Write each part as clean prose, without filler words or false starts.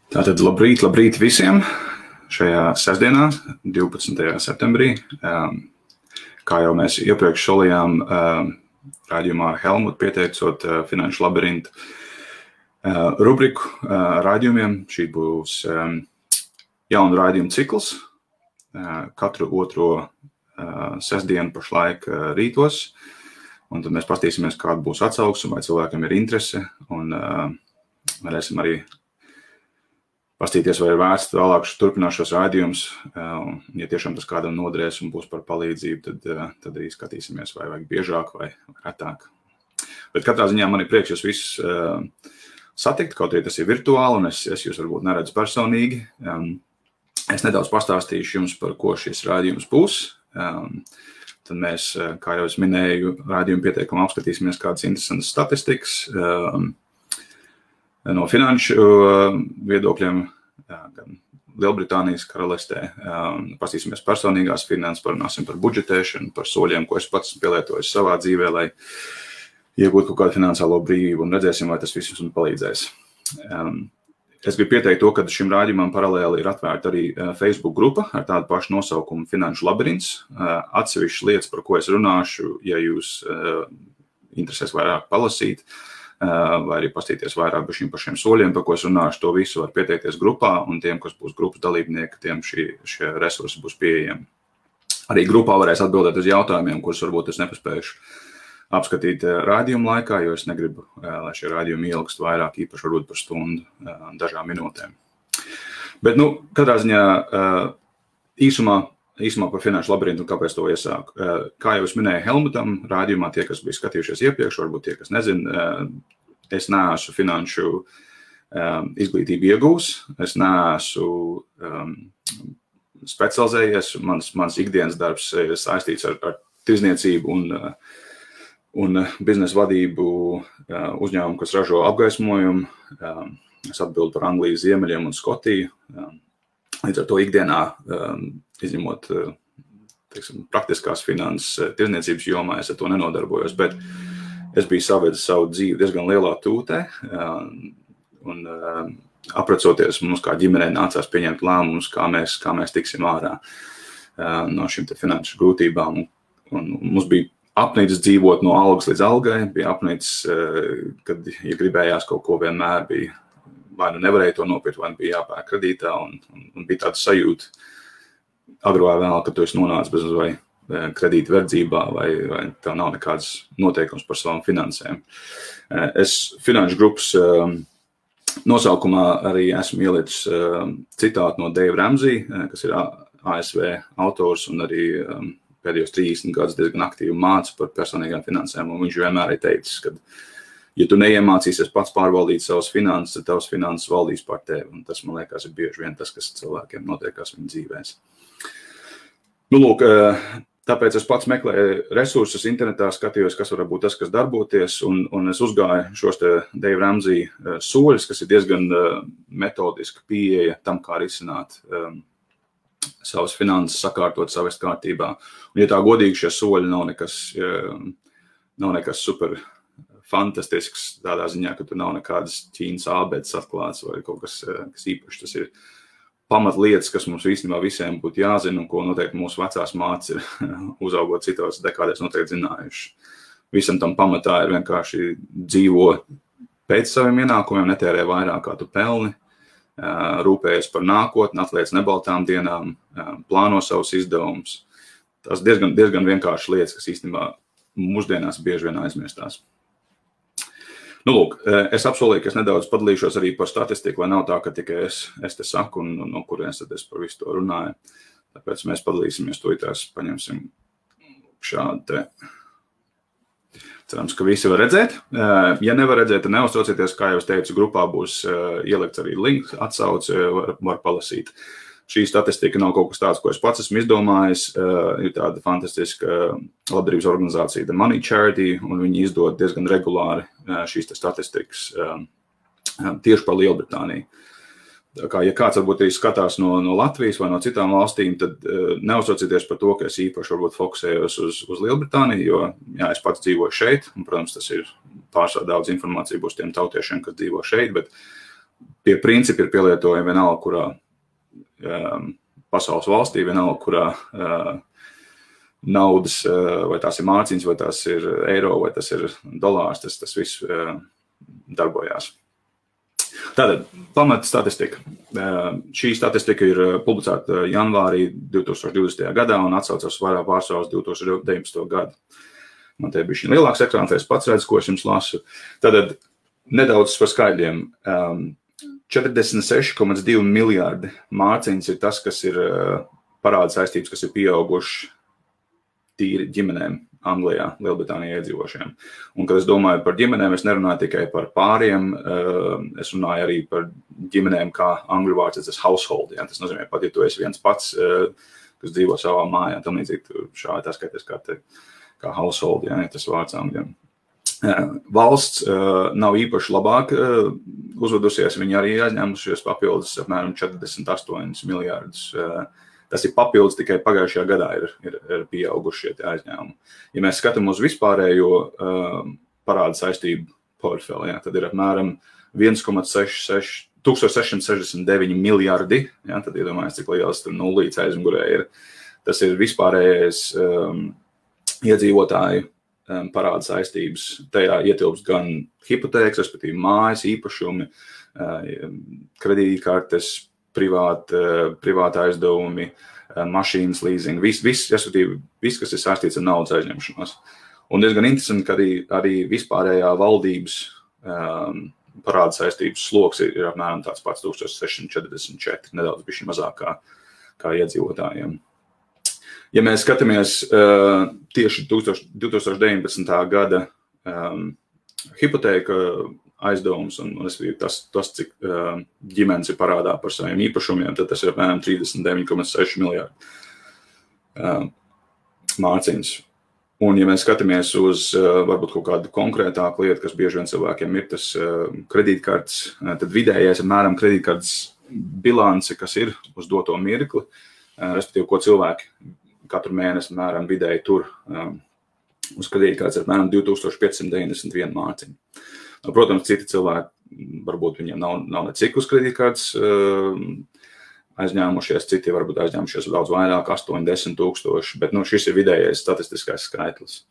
Tātad labrīt visiem šajā sestdienā, 12. septembrī. Kā jau mēs iepriekš solījām raidījumā ar Helmutu pieteicot Finanšu labirintu rubriku raidījumiem. Šī būs jauna raidījuma cikls katru otro sestdienu pašlaik rītos. Un tad mēs paskatīsimies, kāda būs atsauksme, vai cilvēkiem ir interese. Un varēsim arī pastīties, vai ir vērts vēlāk turpināt šos raidījumus. Ja tiešām tas kādam noderēs un būs par palīdzību, tad arī skatīsimies, vai vajag biežāk vai retāk. Bet katrā ziņā man ir prieks jūs visus satikt, kaut arī tas ir virtuāli, un es jūs varbūt neredzu personīgi. Es nedaudz pastāstīšu jums, par ko šis raidījums būs. Tad mēs, kā jau es minēju, raidījumu pieteikumā apskatīsimies kādas interesantas statistikas no finanšu viedokļiem, gan Lielbritānijas karalistē. Pastīsimies personīgās finanses, parunāsim par budžetēšanu, par soļiem, ko es pats pielietojis savā dzīvē, lai iegūtu kaut kādu finansiālo brīvību, un redzēsim, vai tas viss mums palīdzēs. Es gribu pieteikt to, ka šim raidījumam paralēli ir atvērta arī Facebook grupa ar tādu pašu nosaukumu Finanšu labirints. Atsevišķas lietas, par ko es runāšu, ja jūs interesēs vairāk palasīt, vai arī pastīties vairāk par šiem soļiem, par ko es runāšu, to visu var pieteikties grupā, un tiem, kas būs grupas dalībnieki, tiem šie resursi būs pieejami. Arī grupā varēs atbildēt uz jautājumiem, kurus varbūt es nepaspējuši apskatīt raidījuma laikā, jo es negribu, lai šie raidījumi ilgst vairāk, īpaši varbūt par stundu, dažām minūtēm. Bet, katrā ziņā īsumā par Finanšu labirintu un kāpēc to iesāku. Kā jau es minēju Helmutam, raidījumā tie, kas bija skatījušies iepriekš, varbūt tie, kas nezina, es neesmu finanšu izglītību iegūs, es neesmu specializējies, mans ikdienas darbs ir saistīts ar tirdzniecību un biznesa vadību uzņēmumu, kas ražo apgaismojumu. Es atbildu par Anglijas ziemeļiem un Skotiju. Līdz ar to ikdienā, izņemot praktiskās finanses tirdzniecības jomā, es ar to nenodarbojos, bet es biju savedis savu dzīvi diezgan lielā tūtē, un aprecoties mums kā ģimenei nācās pieņemt lēmumus, kā mēs tiksim ārā no šīm finanšu grūtībām. Un mums bija apnicis dzīvot no algas līdz algai, bija apnicis, kad, ja gribējās kaut ko, vienmēr bija, vai nevarēja to nopirkt, vai bija jāpērk kredītā, un bija tāda sajūta agro vai vēl, ka tu esi nonācis bez vai kredīta verdzībā, vai tev nav nekāds noteikums par savām finansēm. Es finanšu grupas nosaukumā arī esmu ielicis citātu no Dave Ramsey, kas ir ASV autors un arī pēdējos 30 gadus diezgan aktīvi māca par personīgām finansēm, un viņš vienmēr ir teicis, ka, ja tu neiemācīsies pats pārvaldīt savas finanses, tad tavas finanses valdīs par tevi, un tas, man liekas, ir bieži vien tas, kas cilvēkiem notiekās viņu dzīvēs. Lūk, tāpēc es pats meklēju resursus internetā, skatījos, kas var būt tas, kas darboties, un es uzgāju šos te Dave Ramsey soļus, kas ir diezgan metodiski pieeja tam, kā risināt savas finanses, sakārtot, savest kārtībā. Un, ja tā godīgi, šie soļi nav nekas super fantastisks tādā ziņā, ka tur nav nekādas Ķīnas ābeces atklāts vai kaut kas īpašs. Tas ir pamatlietas, kas mums īstenībā visiem būtu jāzina, un ko noteikti mūsu vecās mātes ir uzaugot citos dekādēs noteikti zinājuši. Visam tam pamatā ir vienkārši dzīvo pēc saviem ienākumiem, netērē vairāk, kā tu pelni, rūpējies par nākotni, atliec nebaltām dienām, plāno savus izdevumus. Tas diezgan vienkārši lietas, kas īstenībā mūsdienās bieži vien aizmirstās. Lūk, es apsolīju, ka es nedaudz padalīšos arī par statistiku, lai nav tā, ka tikai es te saku un no kurienes tad es par visu to runāju. Tāpēc mēs padalīsimies to, tās paņemsim šādu te. Cerams, ka visi var redzēt. Ja nevar redzēt, tad neuztraucieties, kā jau es teicu, grupā būs ielikts arī links, atsauce, var palasīt. Šī statistika nav kaut kas tāds, ko es pats esmu izdomājis. Ir tāda fantastiska labdarības organizācija The Money Charity, un viņi izdod diezgan regulāri šīs statistikas tieši par Lielbritāniju. Tā kā, ja kāds varbūt arī skatās no Latvijas vai no citām valstīm, tad neuztraucieties par to, ka es īpaši varbūt fokusējos uz Lielbritāniju, jo jā, es pats dzīvoju šeit, un, protams, tas ir pārsvarā daudz informācija būs tiem tautiešiem, kas dzīvo šeit, bet tie principi ir pielietojami vienalga, kurā pasaules valstī, vienalga, kurā naudas, vai tās ir mārciņas, vai tās ir eiro, vai tas ir dolārs, tas viss darbojās. Tātad, pamata statistika. Šī statistika ir publicēta janvārī 2020. gadā un atsaucas vairāk pārsvarā uz 2019. gadu. Man te bija šī lielāks ekrāns, es pats redzu, ko es jums lasu. Tātad, nedaudz par skaidriem. 46,2 miljārdi mārciņas ir tas, kas ir parāda saistības, kas ir pieauguši tīri ģimenēm Anglijā, Lielbritānijā iedzīvošiem. Un, kad es domāju par ģimenēm, es nerunāju tikai par pāriem, es runāju arī par ģimenēm, kā angļu vārds, tas household. Ja? Tas nozīmē, pat ja tu esi viens pats, kas dzīvo savā mājā, tam līdzīgi šādi tā skaities kā household, ja tas vārds angļiem. Valsts nav īpaši labāk uzvedusies, viņi arī aizņēmušies papildus apmēram 48 miljārdus. Tas ir papildus, tikai pagājušajā gadā ir pieauguši šie aizņēmumi. Ja mēs skatām uz vispārējo parāda saistību portfeli, ja, tad ir apmēram 1669 miljardi, ja, tad iedomājies, cik liels tur nullīts aizmugurē ir. Tas ir vispārējais iedzīvotāju parāda saistības. Tajā ietilpst gan hipotēkas, respektīvi mājas, īpašumi, kredītkartes, privāta aizdevumi, mašīnas leasing, viss, kas ir saistīts ar naudas aizņemšanos. Un diezgan interesanti, ka arī vispārējā valdības parāda saistības sloks ir apmēram tāds pats 1644, nedaudz bišķi mazāk kā iedzīvotājiem. Ja mēs skatāmies tieši 2019. gada hipotēka aizdevums un tas, cik ģimenes ir parādā par saviem īpašumiem, tad tas ir apmēram 39,6 miljārdi mārciņas. Un, ja mēs skatāmies uz varbūt kaut kādu konkrētāku lietu, kas bieži vien cilvēkiem ir tas kredītkartes, tad vidējais apmēram kredītkartes bilance, kas ir uz doto mirkli, respektīvi, ko cilvēki katru mēnesi apmēram vidēji tur uz kredītkartes apmēram 2591 mārciņu. Protams, citi cilvēki, varbūt viņiem nav necik uz kredītkartes aizņēmušies, citi varbūt aizņēmušies daudz vairāk, 8-10 tūkstoši, bet šis ir vidējais statistiskais skaitlis.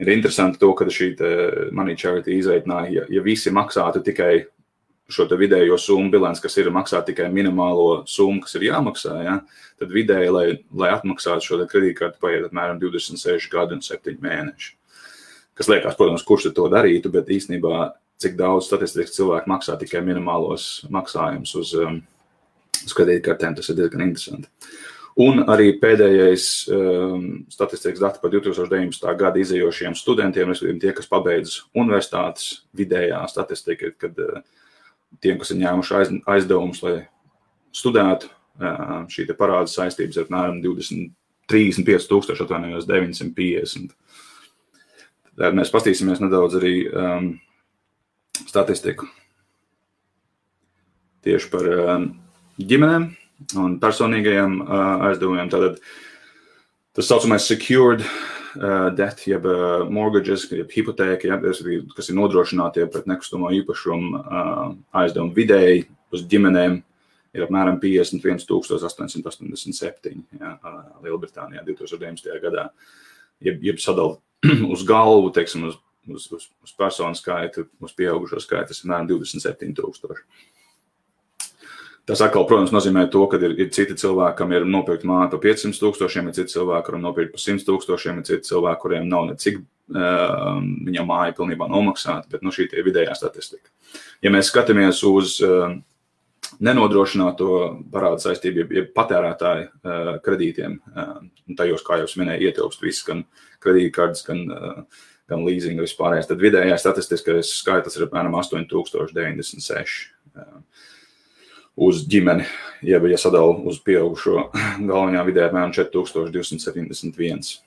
Ir interesanti to, ka šī Money Charity izreikināja, ja visi maksātu tikai šo te vidējo summu bilants, kas ir maksāt tikai minimālo summu, kas ir jāmaksā, ja, tad vidēji, lai atmaksātu šo te kredītkarti, paiet apmēram 26 gadi un 7 mēneši. Kas liekas, protams, kurš to darītu, bet īstenībā, cik daudz statistiski cilvēki maksā tikai minimālos maksājumus uz kredītkartēm, tas ir diezgan interesanti. Un arī pēdējais statistikas dati par 2019. Gada izējošiem studentiem, respektīvi tie, kas pabeidz universitātes, vidējā statistika, kad tiem, kas ir ņēmuši aizdevumus, lai studētu, šī te parāda saistības ir apmēram 35,950. Tad mēs pastīsimies nedaudz arī statistiku tieši par ģimenēm un personīgajiem aizdevumiem. Tātad tas saucamais secured debt, jeb mortgages, jeb hipotēka, kas ir nodrošinātie pret nekustamo īpašumu aizdevumu vidēji uz ģimenēm ir apmēram 51,887 Lielbritānijā 2019. gadā. Jeb sadala uz galvu, teiksim, uz personu skaitu, uz pieaugušo skaitu, tas ir apmēram 27,000. Tas atkal, protams, nozīmē to, ka ir citi cilvēki, kam ir nopirkt māju par 500,000, ir citi cilvēki, kuram nopirkt par 100,000, ir citi cilvēki, kuriem nav necik viņam māja pilnībā nomaksāta, bet šī tie vidējā statistika. Ja mēs skatāmies uz nenodrošināto parāda saistību, jeb patērētāju kredītiem, un tajos, kā jau es minēju, ietilpst viss, gan kredītkartes, gan leasing, vispārējais, tad vidējā statistiskais skaitlis ir apmēram 8,096 uz ģimeni, ja sadala uz pieaugušo galvenajā vidē apmēram 4,271.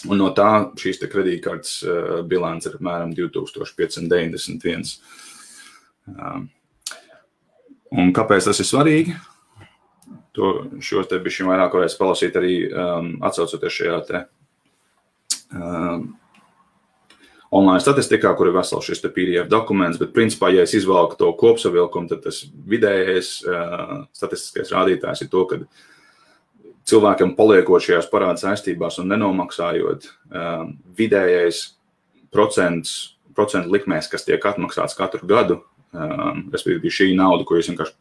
Un no tā šīs te kredītkartes bilants ir apmēram 2,591. Un kāpēc tas ir svarīgi? Šo te bišķi vairāk varēs palasīt arī atsaucoties šajā te online statistikā, kur ir vesels šis PDF dokuments, bet principā, ja es izvalku to kopsavilkumu, tad tas vidējais statistiskais rādītājs ir to, ka cilvēkam paliekot šajās parāda saistībās un nenomaksājot, vidējais procentu likmēs, kas tiek atmaksāts katru gadu, respektīvi šī nauda, ko jūs vienkārši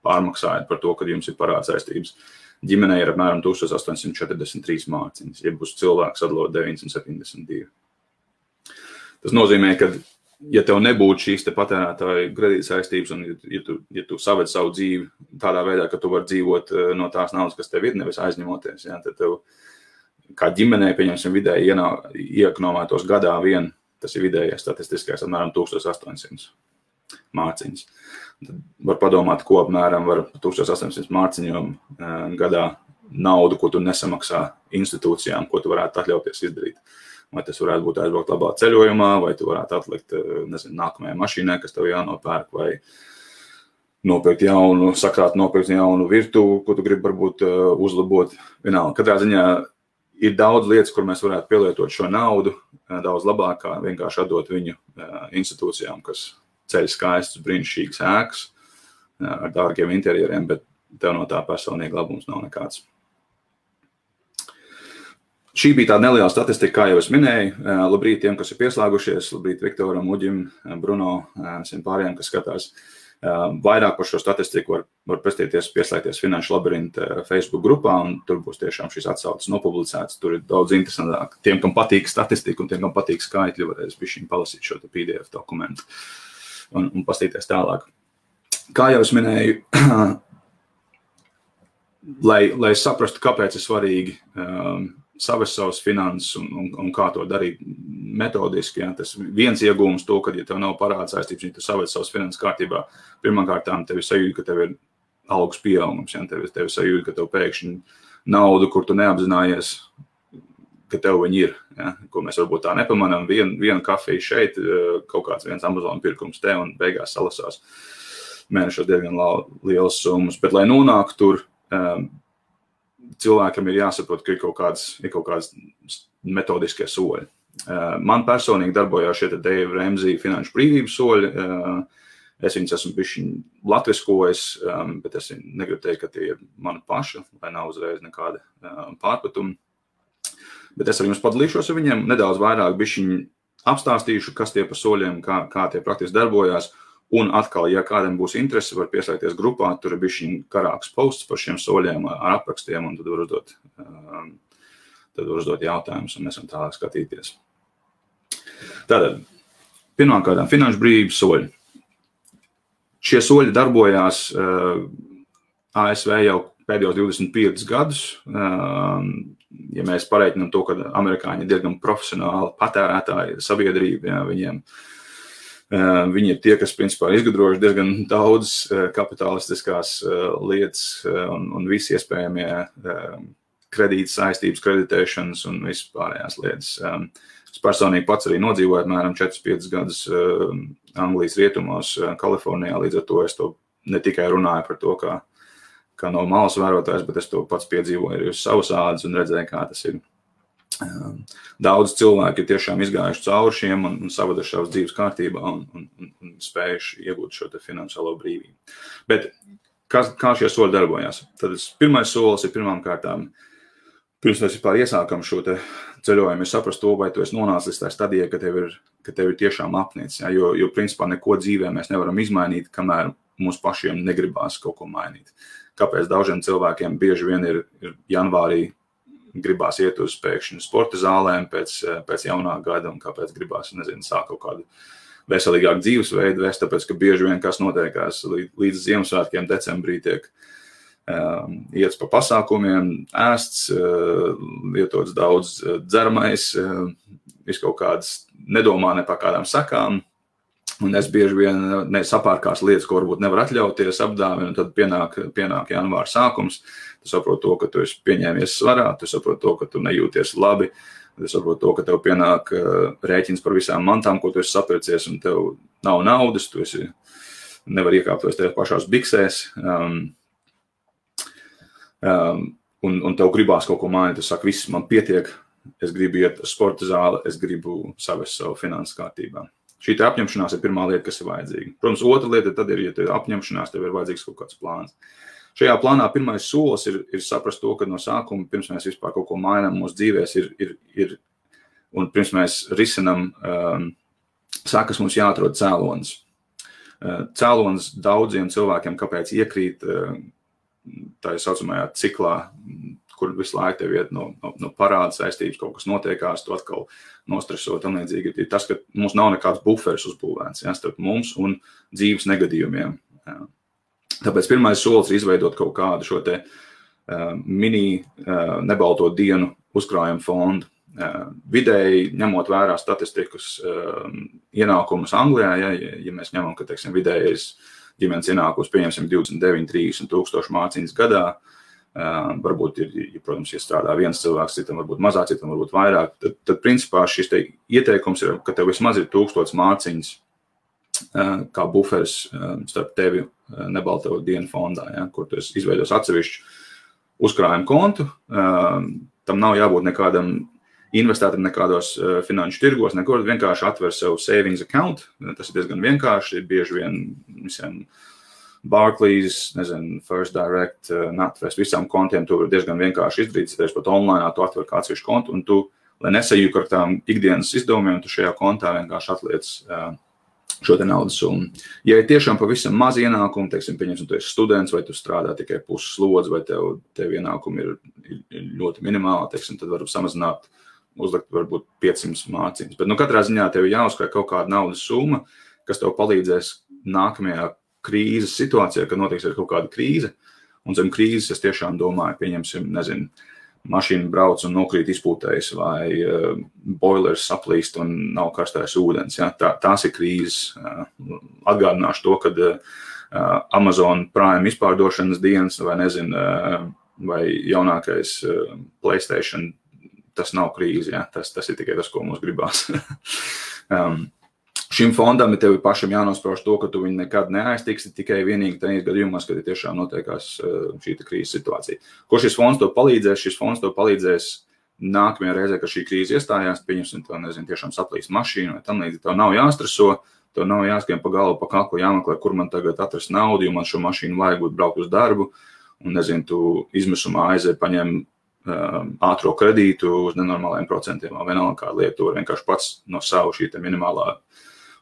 pārmaksājat par to, kad jums ir parāda saistības, ģimenei ir apmēram 1843 mārciņas, ja būs cilvēks atdalot 972. Tas nozīmē, ka, ja tev nebūtu šīs te patērētāju kredīta saistības, un ja tu saved savu dzīvi tādā veidā, ka tu vari dzīvot no tās naudas, kas tev ir, nevis aizņemoties, ja, tad tev kā ģimenei, pieņemsim, vidēji iekonomētos gadā vien, tas ir vidējais statistiskais, apmēram 1800 mārciņas. Tad var padomāt, ko apmēram var 1800 mārciņām gadā naudu, ko tu nesamaksā institūcijām, ko tu varētu atļauties izdarīt. Vai tas varētu būt aizbraukt labā ceļojumā, vai tu varētu atlikt, nākamajai mašīnai, kas tev jānopērk, vai nopirkt jaunu virtuvi, ko tu gribi varbūt uzlabot. Vienalga, katrā ziņā ir daudz lietas, kur mēs varētu pielietot šo naudu, daudz labāk, kā vienkārši atdot viņu institūcijām, kas ceļ skaistus, brīnišķīgas ēkas ar dārgiem interjeriem, bet tev no tā personīgi labums nav nekāds. Šī bija tāda neliela statistika, kā jau es minēju. Labrīt tiem, kas ir pieslēgušies, labrīt Viktoram, Uģim, Bruno, visiem pārējiem, kas skatās. Vairāk par šo statistiku var pieslēgties Finanšu labirinta Facebook grupā, un tur būs tiešām šīs atsauces nopublicētas. Tur ir daudz interesantāk. Tiem, kam patīk statistika un tiem, kam patīk skaitļi, varēs bišķiņ palasīt šo PDF dokumentu un pastīties tālāk. Kā jau es minēju, lai saprastu, kāpēc ir svarīgi savest savas finanses un kā to darīt metodiski. Ja? Tas viens iegūms to, ka, ja tev nav parāda saistības, ja tu savest savas finanses kārtībā, pirmkārtām tev ir sajūta, ka tev ir algas pieaugums. Ja? Tev ir sajūta, ka tev pēkšņi naudu, kur tu neapzinājies, ka tev viņi ir. Ja? Ko mēs varbūt tā nepamanām. Viena kafija šeit, kaut kāds viens Amazon pirkums te un beigās salasās mēnešos diezgan lielas summas. Bet, lai nonāktu tur, cilvēkam ir jāsaprot, ka ir kaut kāds metodiskie soļi. Man personīgi darbojās šie Dave Ramsey finanšu brīvības soļi. Es viņus esmu bišķiņ latviskojis, bet es negribu teikt, ka tie ir mani paši, lai nav uzreiz nekāda pārpratuma. Bet es ar jums padalīšos ar viņiem, nedaudz vairāk bišķiņ apstāstīšu, kas tie pa soļiem, kā tie praktiski darbojās. Un atkal, ja kādam būs interese, var pieslēgties grupā, tur ir bišķiņ karāks posts par šiem soļiem ar aprakstiem, un tad var uzdot jautājumus, un mēs varam tālāk skatīties. Tātad, pirmkārt, finanšu brīvības soļi. Šie soļi darbojās ASV jau pēdējos 25 gadus. Ja mēs pareiķinām to, ka amerikāņi ir diezgan profesionāli patērētāji sabiedrība, ja, viņi ir tie, kas principā izgudrojuši diezgan daudz kapitalistiskās lietas un visi iespējamie kredītas saistības, kreditēšanas un visas pārējās lietas. Es personīgi pats arī nodzīvoju apmēram 4-5 gadus Anglijas rietumos, Kalifornijā, līdz ar to es to ne tikai runāju par to, kā no malas vērotājs, bet es to pats piedzīvoju arī uz savas ādas un redzēju, kā tas ir. Daudz cilvēki ir tiešām izgājuši cauri šiem un savaduši savas dzīves kārtībā un spējuši iegūt šo te finansiālo brīvību. Bet kā šie soļi darbojās? Tad pirmais solis ir pirmkārtām, pirms mēs vispār iesākam šo te ceļojumu, ir saprast to, vai tu esi nonācis līdz tā stadijai, ka tev ir tiešām apnicis. Ja? Jo principā neko dzīvē mēs nevaram izmainīt, kamēr mums pašiem negribās kaut ko mainīt. Kāpēc daužiem cilvēkiem bieži vien ir janvārī gribās iet uz pēkšņu sporta zālēm pēc jaunā gada un kāpēc gribās, sāk kaut kādu veselīgāku dzīvesveidu vest, tāpēc, ka bieži vien kas notiekās līdz Ziemassvētkiem decembrī tiek iets pa pasākumiem, ēsts, lietots daudz dzeramais, viskaut kādas nedomā ne par kādām sakām, un es bieži vien sapārkās lietas, ko varbūt nevar atļauties, apdāvina, un tad pienāk janvāra sākums. Tu saproti to, ka tu esi pieņēmies svarā, tu saproti to, ka tu nejūties labi, tu saproti to, ka tev pienāk rēķins par visām mantām, ko tu esi sapircies, un tev nav naudas, tu nevar iekāpties tev pašās biksēs, un tev gribās kaut ko mainīt, tu saki, viss man pietiek, es gribu iet uz sporta zāli, es gribu savest savu finanses kārtībā. Šī apņemšanās ir pirmā lieta, kas ir vajadzīga. Protams, otra lieta tad ir, ja tev ir apņemšanās, tev ir vajadzīgs kaut kāds plāns. Šajā plānā pirmais solis ir saprast to, ka no sākuma, pirms mēs vispār kaut ko mainām mūsu dzīvēs, ir un pirms mēs risinam, sākas mums jāatrod cēlonis. Cēlonis daudziem cilvēkiem, kāpēc iekrīt tā saucamajā ciklā, kur visu laiku tev iet no parāda saistības, kaut kas notiekās, tu atkal nostresot un līdzīgi. Ir tas, ka mums nav nekāds buferis uzbūvēts, starp mums un dzīves negadījumiem. Tāpēc pirmais solis ir izveidot kaut kādu šo te mini nebalto dienu uzkrājumu fondu. Vidēji, ņemot vērā statistikas ienākumus Anglijā, ja mēs ņemam, ka, teiksim, vidējais ģimenes ienākums pieņemsim 29-30 tūkstoši mārciņas gadā, varbūt protams, ja strādā viens cilvēks, citam varbūt mazāk, citam varbūt vairāk, tad principā šis te ieteikums ir, ka tev vismaz ir 1000 mārciņas kā buferis starp tevi nebalto dienu fondā, kur tu izveidos atsevišķu uzkrājumu kontu, tam nav jābūt nekādam investētam nekādos finanšu tirgos, nekur vienkārši atver sev savings account, tas ir diezgan vienkārši, ir bieži vien visiem Barclays, First Direct, NatWest, visām kontiem tu vari diezgan vienkārši izdarīt, ja pat online, tu atver kā atsevišķu kontu, un tu, lai nesajūk ar tām ikdienas izdevumiem, tu šajā kontā vienkārši atliec šo te naudas summu. Ja ir tiešām pavisam maz ienākumu, teiksim, pieņemsim, tu esi students, vai tu strādā tikai puses slodzi, vai tev ienākumi ir ļoti minimāli, teiksim, tad varu samazināt, uzlikt varbūt 500 mārciņas. Bet katrā ziņā tev jāuzkrāj kaut kāda naudas summa, kas tev palīdzēs nākamajā krīzes situācijā, kad notiks ir kaut kāda krīze, un zem krīzes es tiešām domāju, pieņemsim, mašīna brauc un nokrīt izpūtējs, vai boilers saplīst un nav karstais ūdens. Ja? Tās ir krīzes. Atgādināšu to, kad Amazon Prime izpārdošanas dienas, vai jaunākais PlayStation, tas nav krīze, ja? Tas ir tikai tas, ko mums gribās. Šim fondam tev ir pašam jānosprauž to, ka tu viņu nekad neaiztiksi, tikai vienīgi tajos gadījumos, kad ir tiešām notiekās šī krīzes situācija. Ko šis fonds tev palīdzēs? Šis fonds tev palīdzēs nākamajā reizē, kad šī krīze iestājās, pieņemsim, tiešām saplīst mašīnu vai tam līdzīgi. Tev nav jāstreso, tev nav jāskrien pa galvu, pa kaklu, jāmeklē, kur man tagad atrast naudu, jo man šo mašīnu vajag būt braukt uz darbu, un, tu izmisumā aizēji paņem ātro kredītu uz nenormāliem procentiem, vai vienalga kādu lietu, tu vari vienkārši pats no savu šī minimālā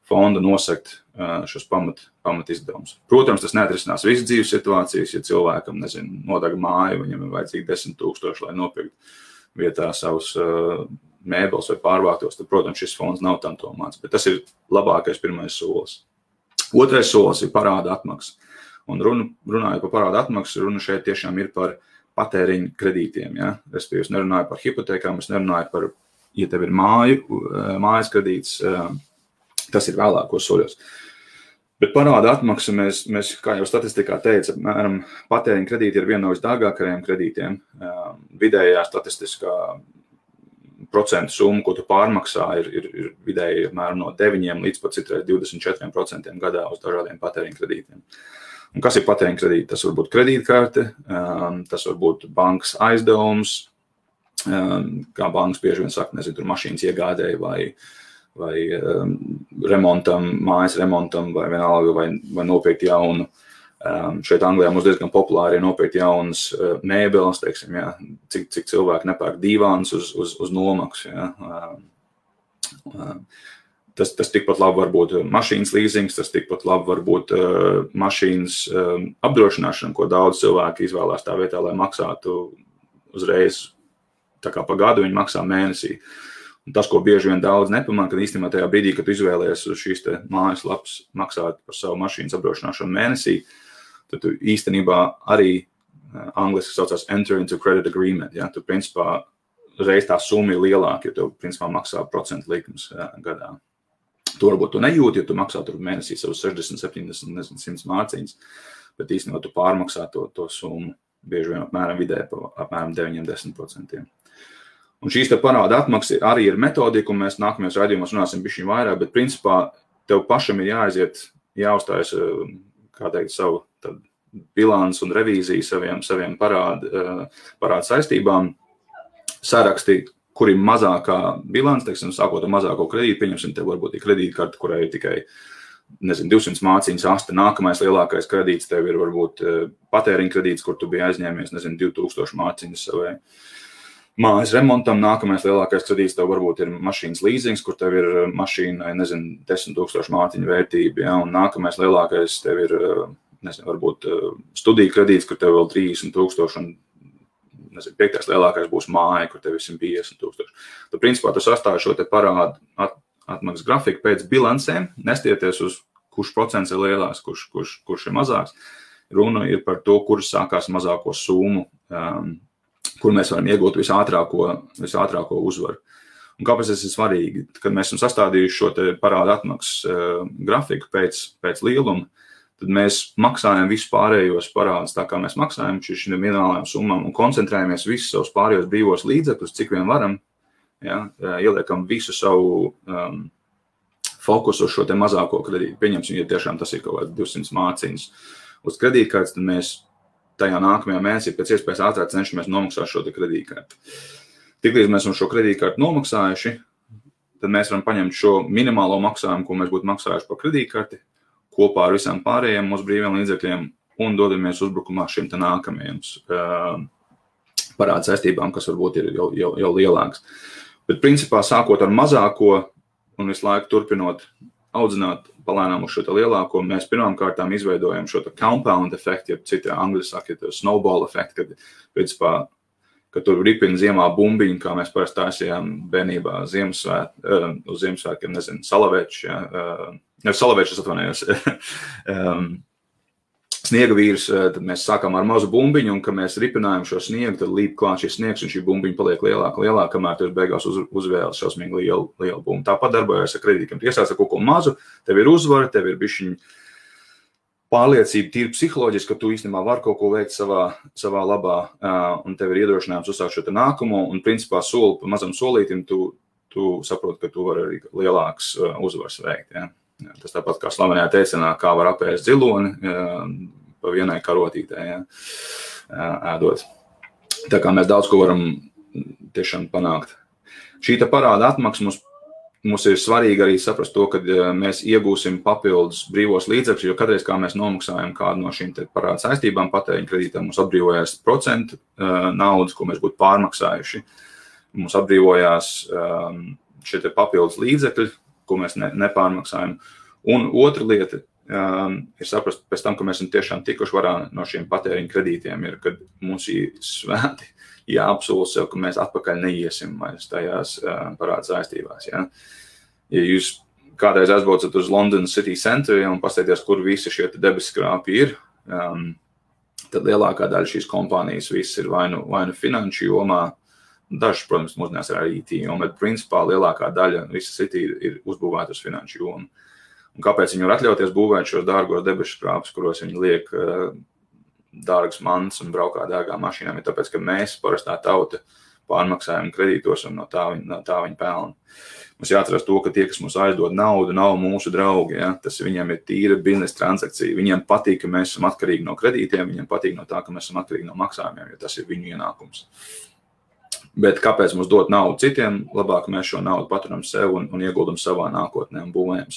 fonda nosekt šos pamat izdevumus. Protams, tas neatrisinās visas dzīves situācijas, ja cilvēkam, nodeg māju, viņam ir vajadzīgi 10 000, lai nopirkt vietā savus mēbeles vai pārvāktos, tad, protams, šis fonds nav tam domāts, bet tas ir labākais pirmais solis. Otrais solis ir parāda atmaksa. Un runājot par parāda atmaksu, runa šeit tiešām ir par patēriņu kredītiem. Ja? Respektīvi, es nerunāju par hipotekām, es nerunāju par, ja tev ir mājas kredīts, tas ir vēlākos soļos. Bet parāda atmaksa mēs, kā jau statistikā teica, apmēram patēriņa kredīti ir viena no visdārgākajiem kredītiem. Vidējā statistiskā procentu summa, ko tu pārmaksā, ir vidēji apmēram no 9 līdz pat citreiz 24% gadā uz dažādiem patēriņa kredītiem. Un kas ir patēriņa kredīti? Tas var būt kredītkarte, tas var būt bankas aizdevums, kā bankas bieži vien saka, tur mašīnas iegādēji vai remontam, mājas remontam, vai vienalga, vai nopirkt jaunu. Šeit Anglijā mums diezgan populāri ir nopirkt jaunas mēbeles, teiksim, ja, cik cilvēki nepērk divāns uz nomaksu. Ja. Tas tikpat labi var būt mašīnas līzings, tas tikpat labi var būt mašīnas apdrošināšana, ko daudz cilvēki izvēlās tā vietā, lai maksātu uzreiz, tā kā pa gadu viņi maksā mēnesī. Un tas, ko bieži vien daudz nepamana, kad īstenībā tajā brīdī, kad tu izvēlies uz šīs te mājaslapas maksāt par savu mašīnas apdrošināšanu mēnesī, tad tu īstenībā arī angliski saucās enter into credit agreement. Ja? Tu principā reiz tā summa ir lielāka, jo tu principā maksā procentu likums gadā. Tu varbūt tu nejūti, jo tu maksā tur mēnesī savus 60, 70, 100 mārciņas, bet īstenībā tu pārmaksā to summu bieži vien apmēram vidē pa apmēram 9-10%. Un šīs te parāda atmaksa arī ir metodika, un mēs nākamajos raidījumos runāsim bišķiņ vairāk, bet principā tev pašam ir jāuzstājas, kā teikt, savu bilans un revīziju saviem parāda saistībām, saraksti, kur ir mazākā bilance, teiksim, sākot ar mazāko kredītu, pieņemsim, tev varbūt ir kredītkarte, kurai ir tikai, 200 māciņas asta, nākamais lielākais kredīts, tev ir varbūt patēriņa kredīts, kur tu biji aizņēmies, 2000 māciņas savai mājas remontam, nākamais lielākais kredīts tev varbūt ir mašīnas līzings, kur tev ir mašīnai, 10 000 māciņu vērtība, ja, un nākamais lielākais tev ir, varbūt studiju kredīts, kur tev vēl 30 000, un, piektais lielākais būs māja, kur tev ir 150 000. Tad, principā, tu sastāvi šo te parādu atmaksas grafiku pēc bilancēm, nestieties uz kurš procents ir lielāks, kurš ir mazāks. Runa ir par to, kurš sākās mazāko summu, kur mēs varam iegūt visātrāko uzvaru. Un kāpēc tas ir svarīgi? Kad mēs esam sastādījuši šo te parādu atmaksas grafiku pēc lieluma, tad mēs maksājam visus pārējos parādus tā, kā mēs maksājam šīm minimālajām summām un koncentrējamies visus savus pārējos brīvos līdzekļus, cik vien varam. Ja, ieliekam visu savu fokusu uz šo te mazāko kredītu. Pieņemsim, ja tiešām tas ir kaut kāds 200 māciņas uz kredītkartes, tad mēs tajā nākamajā mēnesī pēc iespējas ātrāk cenšamies nomaksāt šo te kredītkarti. Tiklīdz mēs šo kredītkarti nomaksājuši, tad mēs varam paņemt šo minimālo maksājumu, ko mēs būtu maksājuši par kredītkarti, kopā ar visām pārējiem mūsu brīviem līdzekļiem un dodamies uzbrukumā šim te nākamajiem parādu saistībām, kas varbūt ir jau lielāks. Bet principā sākot ar mazāko un visu laiku turpinot audzināt palēnām uz šo te lielāko, mēs pirmām kārtām izveidojam šo te compound efektu, ja citi angļu saka, snowball efektu, kad principā, kad tur ripina ziemā bumbiņu, kā mēs parasti taisījām bērnībā uz Ziemassvētkiem, salaveču, salavečus atvainojos, sniega vīrus, tad mēs sākām ar mazu bumbiņu, un kad mēs ripinājām šo sniegu, tad līp klāt šis sniegs, un šī bumbiņa paliek lielāka, kamēr tu beigās uzvēlas šausmīgi lielu bumbu. Tāpat darbojas ar kredītiem. Tu iesāc ar kaut ko mazu, tev ir uzvara, tev ir bišķiņ pārliecība tīri psiholoģiski, ka tu īstenībā vari kaut ko veikt savā labā, un tev ir iedrošinājums uzsākt šo te nākamo, un principā soli pa mazam solītim tu saproti, ka tu vari arī lielāks uzvars veikt, ja. Tas tāpat kā slavenajā teicienā, kā var apēst ziloni pa vienai karotītē, ja, ēdot. Tā kā mēs daudz ko varam tiešām panākt. Šī te parāda atmaksa mums ir svarīgi arī saprast to, ka mēs iegūsim papildus brīvos līdzekļus, jo katreiz, kā mēs nomaksājam kādu no šīm te parāda saistībām, patēriņa kredītām, mums atbrīvojās procentu naudas, ko mēs būtu pārmaksājuši. Mums atbrīvojās šie te papildus līdzekļi, ko mēs nepārmaksājam. Un otra lieta ir saprast pēc tam, ka mēs esam tiešām tikuši varā no šiem patēriņa kredītiem, ir, kad mums ir svēti jāapsola sev, ka mēs atpakaļ neiesim vairs tajās parāda saistībās. Ja? Ja jūs kādreiz aizbraucat uz London City Center un paskatieties, kur visi šie debeskrāpi ir, tad lielākā daļa šīs kompānijas viss ir vai nu finanšu jomā, dažs, protams, mūsdienās ir arī IT joma, bet principā lielākā daļa visa City ir uzbūvēta uz finanšu jomu. Un kāpēc viņi var atļauties būvēt šos dārgos debešu krāpus, kuros viņi liek dārgas mantas un braukā dārgām mašīnām, ir tāpēc, ka mēs, parastā tauta, pārmaksājam kredītos un no tā viņi pelna. Mums jāatceras to, ka tie, kas mums aizdod naudu, nav mūsu draugi. Ja? Tas viņiem ir tīra biznesa transakcija. Viņiem patīk, ka mēs esam atkarīgi no kredītiem, viņiem patīk no tā, ka mēs esam atkarīgi no maksājumiem, jo tas ir viņu ienākums. Bet kāpēc mums dot naudu citiem? Labāk mēs šo naudu paturam sev un ieguldam savā nākotnē un būvējam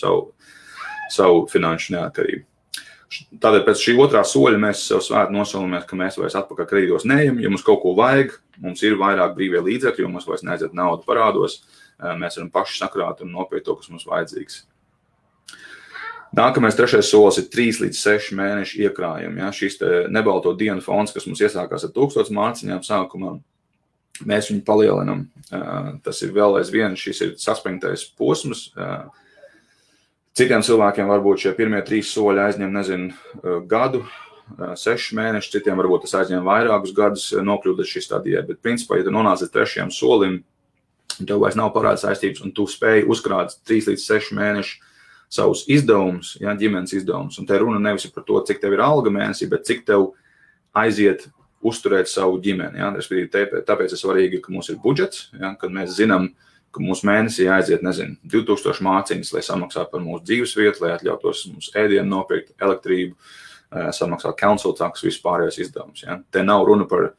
savu finanšu neatkarību. Tādēļ pēc šī otrā soļa mēs sev svēti nosolamies, ka mēs vairs atpakaļ kredītos neejam. Ja mums kaut ko vajag, mums ir vairāk brīvie līdzekļi, jo mums vairs neaiziet naudu parādos. Mēs varam paši sakrāt un nopirkt to, kas mums vajadzīgs. Nākamais trešais solis ir 3 līdz 6 mēnešu iekrājumi. Ja? Šis nebalto dienu fonds, kas mums iesākās ar 1000 mārciņām sākumā, mēs viņu palielinam. Tas ir vēl aizvien, šis ir saspringtais posms. Citiem cilvēkiem varbūt šie pirmie 3 soļi aizņem, gadu, 6 mēnešus, citiem varbūt tas aizņem vairākus gadus nokļūt līdz šī stadijai, bet principā, ja tu nonāc līdz 3. solim, tev vairs nav parāda saistības, un tu spēj uzkrāt 3 līdz 6 mēnešu savus izdevumus, ja, ģimenes izdevumus, un te runa nevis par to, cik tev ir alga mēnesī, bet cik tev aiziet uzturēt savu ģimeni. Ja? Tāpēc ir svarīgi, ka mums ir budžets, ja? Kad mēs zinām, ka mūsu mēnesī aiziet, 2000 māciņas, lai samaksātu par mūsu dzīves vietu, lai atļautos mums ēdienu nopirkt, elektrību, samaksāt council tax, vispārējos izdevumus. Ja? Te nav runa par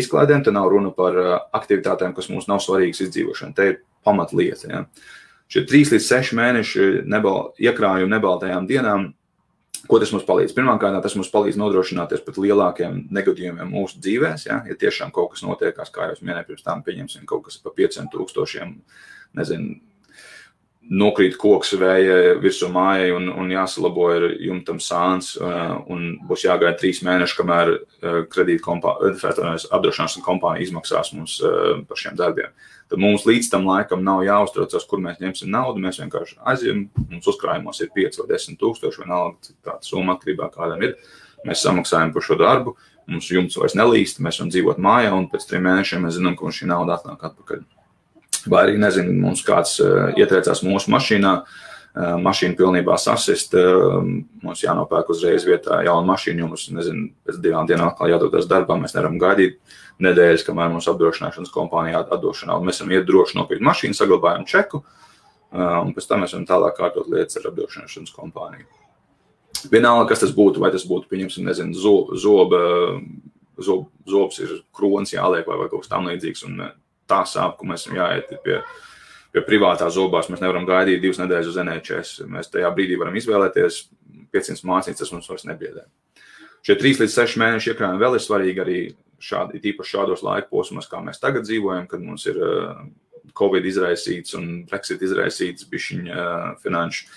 izklaidēm, te nav runa par aktivitātēm, kas mums nav svarīgas izdzīvošana. Te ir pamatlieta. Ja. Šie 3 līdz 6 mēneši iekrājumi nebaltajām dienām, ko tas mums palīdz? Pirmkārt, tas mums palīdz nodrošināties pat lielākiem negadījumiem mūsu dzīvēs. Ja tiešām kaut kas notiekās, kā jau es minēju, pirms tam pieņemsim kaut kas pa 500,000, nezinu, nokrīt koks vēja virsū mājai un jāsalabo ir jumtam sāns un būs jāgaida 3 mēneši, kamēr apdrošināšanas kompānija izmaksās mums par šiem darbiem. Tad mums līdz tam laikam nav jāuztraucas, kur mēs ņemsim naudu, mēs vienkārši aizjām, mums uzkrājumos ir 5 vai 10,000, vienalga, cik tāda summa atkarībā kādam ir. Mēs samaksājam par šo darbu, mums jumts vairs nelīst, mēs varam dzīvot mājā un pēc 3 mēnešiem mēs zinām, ka mums šī nauda atnāk atpakaļ. Vai arī, nezinu, mums kāds ietriecās mūsu mašīnā, mašīna pilnībā sasist, mums jānopērk uzreiz vietā jauna mašīna, jo mums, nezinu, pēc 2 dienām atkal jādodas darbā, mēs nevaram gaidīt nedēļas, kamēr mums apdrošināšanas kompānija atdošu naudu. Mēs varam iet droši nopirkt mašīnu, saglabājam čeku, un pēc tam mēs varam tālāk kārtot lietas ar apdrošināšanas kompāniju. Vienalga, kas tas būtu, vai tas būtu, pieņemsim, nezinu, zobs ir kronis jāliek vai kaut kas tam līdzīgs, un tā sāp, ka mēs jāiet pie privātā zobās, mēs nevaram gaidīt 2 nedēļas uz NHS. Mēs tajā brīdī varam izvēlēties 500 mācītes, tas mums vairs nebiedē. Šie 3 līdz 6 mēneši iekrājumi vēl ir svarīgi arī īpaši šādos laika posmos, kā mēs tagad dzīvojam, kad mums ir Covid izraisīts un Brexit izraisīts bišķiņa finanšu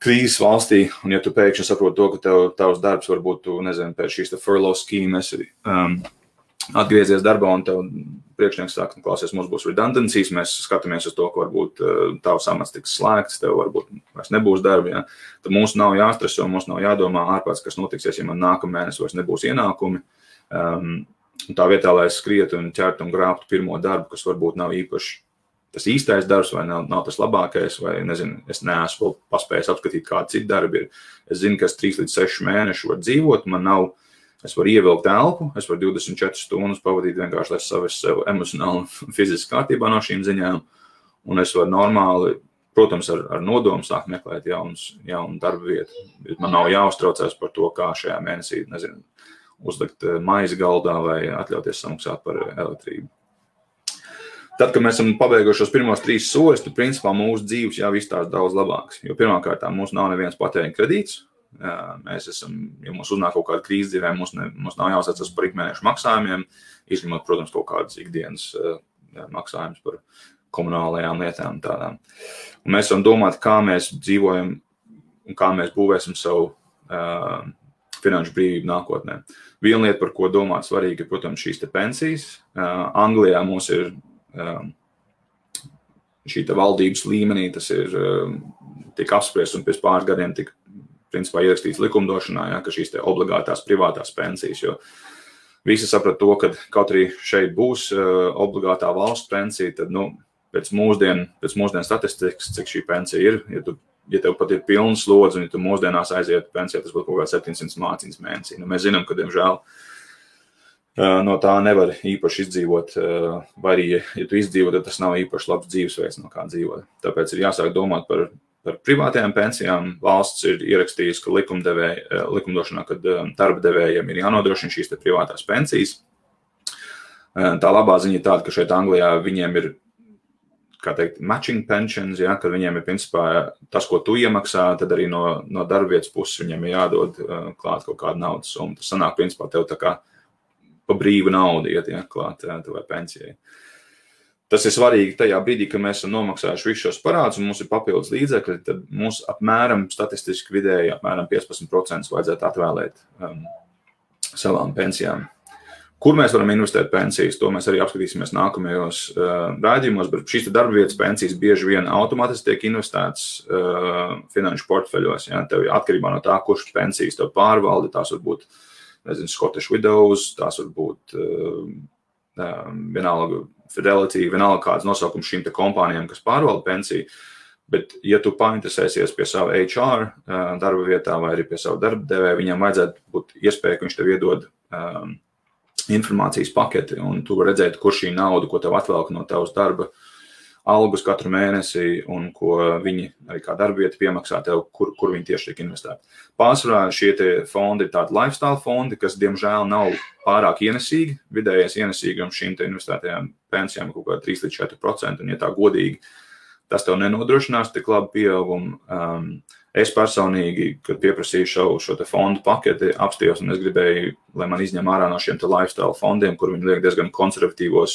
krīzes valstī, un ja tu pēkšņi saproti to, ka tavs darbs varbūt, tu, nezinu, pēc šīs furlough schēmas atgriezies darbā un tev priekšnieks saka, klausies, mums būs redundancies, mēs skatāmies uz to, ka varbūt tavs amats tiks slēgts, tev varbūt vairs nebūs darba, ja? Tad mums nav jāstreso, mums nav jādomā ārpēc, kas notiksies, ja man nākamēnes vairs nebūs ienākumi. Tā vietā, lai es skrietu un ķertu un grābtu pirmo darbu, kas varbūt nav īpaši tas īstais darbs vai nav tas labākais, vai, nezinu, es neesmu paspējis apskatīt, kādi citi darbi ir. Es zinu, ka es 3 līdz 6 mēneši var dzīvot, es varu ievilkt elpu, es varu 24 stundas pavadīt vienkārši, lai savies sev emocionāli un fiziski kārtībā no šīm ziņām, un es varu normāli, protams, ar nodomu sākt meklēt jaunu darba vietu. Man nav jāuztraucās par to, kā šajā mēnesī, nezinu, uzlikt maizi galdā vai atļauties samaksāt par elektrību. Tad, kad mēs esam pabeiguši šos pirmos 3 soļus, tad principā mūsu dzīves jau izstāsta daudz labāks, jo pirmkārt mums nav neviens patēriņa kredīts. Mēs esam, ja mums uznāk kaut kāda krīze dzīvē, mums nav jāsacas par ikmēnešu maksājumiem, izņemot, protams, kaut kādas ikdienas maksājumus par komunālajām lietām tādām. Un mēs varam domāt, kā mēs dzīvojam un kā mēs būvēsim savu finanšu brīvību nākotnē. Viena lieta, par ko domāt svarīgi, ir, protams, šīs te pensijas. Anglijā mums ir šī te valdības līmenī, tas ir tik apspriests un pēc pāris gadiem tik principā ierakstīts likumdošanā, ja, ka šīs te obligātās privātās pensijas, jo visi saprat to, ka kaut arī šeit būs obligātā valsts pensija, tad, pēc mūsdienu statistikas, cik šī pensija ir, ja tev pat ir pilns slodzi, un ja tu mūsdienās aiziet pensijā, tas būtu kaut kā 700 mācības mēnesī. Mēs zinām, ka, diemžēl, no tā nevar īpaši izdzīvot, vai arī, ja tu izdzīvo, tad tas nav īpaši labs dzīvesveids, no kā dzīvot. Tāpēc ir jāsāk domāt par privātajām pensijām. Valsts ir ierakstījusi, ka likumdošanā, kad darba devējiem ir jānodrošina šīs te privātās pensijas. Tā labā ziņa ir tāda, ka šeit Anglijā viņiem ir, kā teikt, matching pensions, ja, kad viņiem ir principā tas, ko tu iemaksā, tad arī no darba vietas puses viņiem ir jādod klāt kaut kāda naudas summa. Tas sanāk, principā, tev tā kā pa brīvu naudu iet, ja, klāt tavai pensijai. Tas ir svarīgi tajā brīdī, kad mēs esam nomaksājuši visus šos parādus un mums ir papildus līdzekļi, tad mums apmēram statistiski vidēji apmēram 15% vajadzētu atvēlēt savām pensijām. Kur mēs varam investēt pensijas, to mēs arī apskatīsimies nākamajos rādījumos, bet šīs darba vietas pensijas bieži vien automātiski tiek investētas finanšu portfeļos. Ja? Tev atkarībā no tā, kurš pensijas tev pārvalda, tās var būt, nezinu, Scottish Widows, tās var būt vienalga Fidelity, vienalga kāds nosaukums šīm te kompānijām, kas pārvalda pensiju, bet ja tu painteresēsies pie savu HR darba vietā vai arī pie savu darba devēja, viņam vajadzētu būt iespēja, ka viņš tev iedod informācijas paketi, un tu vari redzēt, kur šī nauda, ko tev atvelk no tavas darba algus katru mēnesi un ko viņi arī kā darbieti piemaksā tev, kur viņi tieši tiek investēti. Pārsvarā šie tie fondi ir tādi lifestyle fondi, kas diemžēl nav pārāk ienesīgi. Vidējais ienesīgums šīm te investētajām pensijām kaut kā 3-4%, un ja tā godīgi, tas tev nenodrošinās tik labu pieaugumu. Es personīgi, kad pieprasīju šo te fondu paketi, apstījos, un es gribēju, lai man izņem ārā no šiem te lifestyle fondiem, kur viņi liek diezgan konservatīvos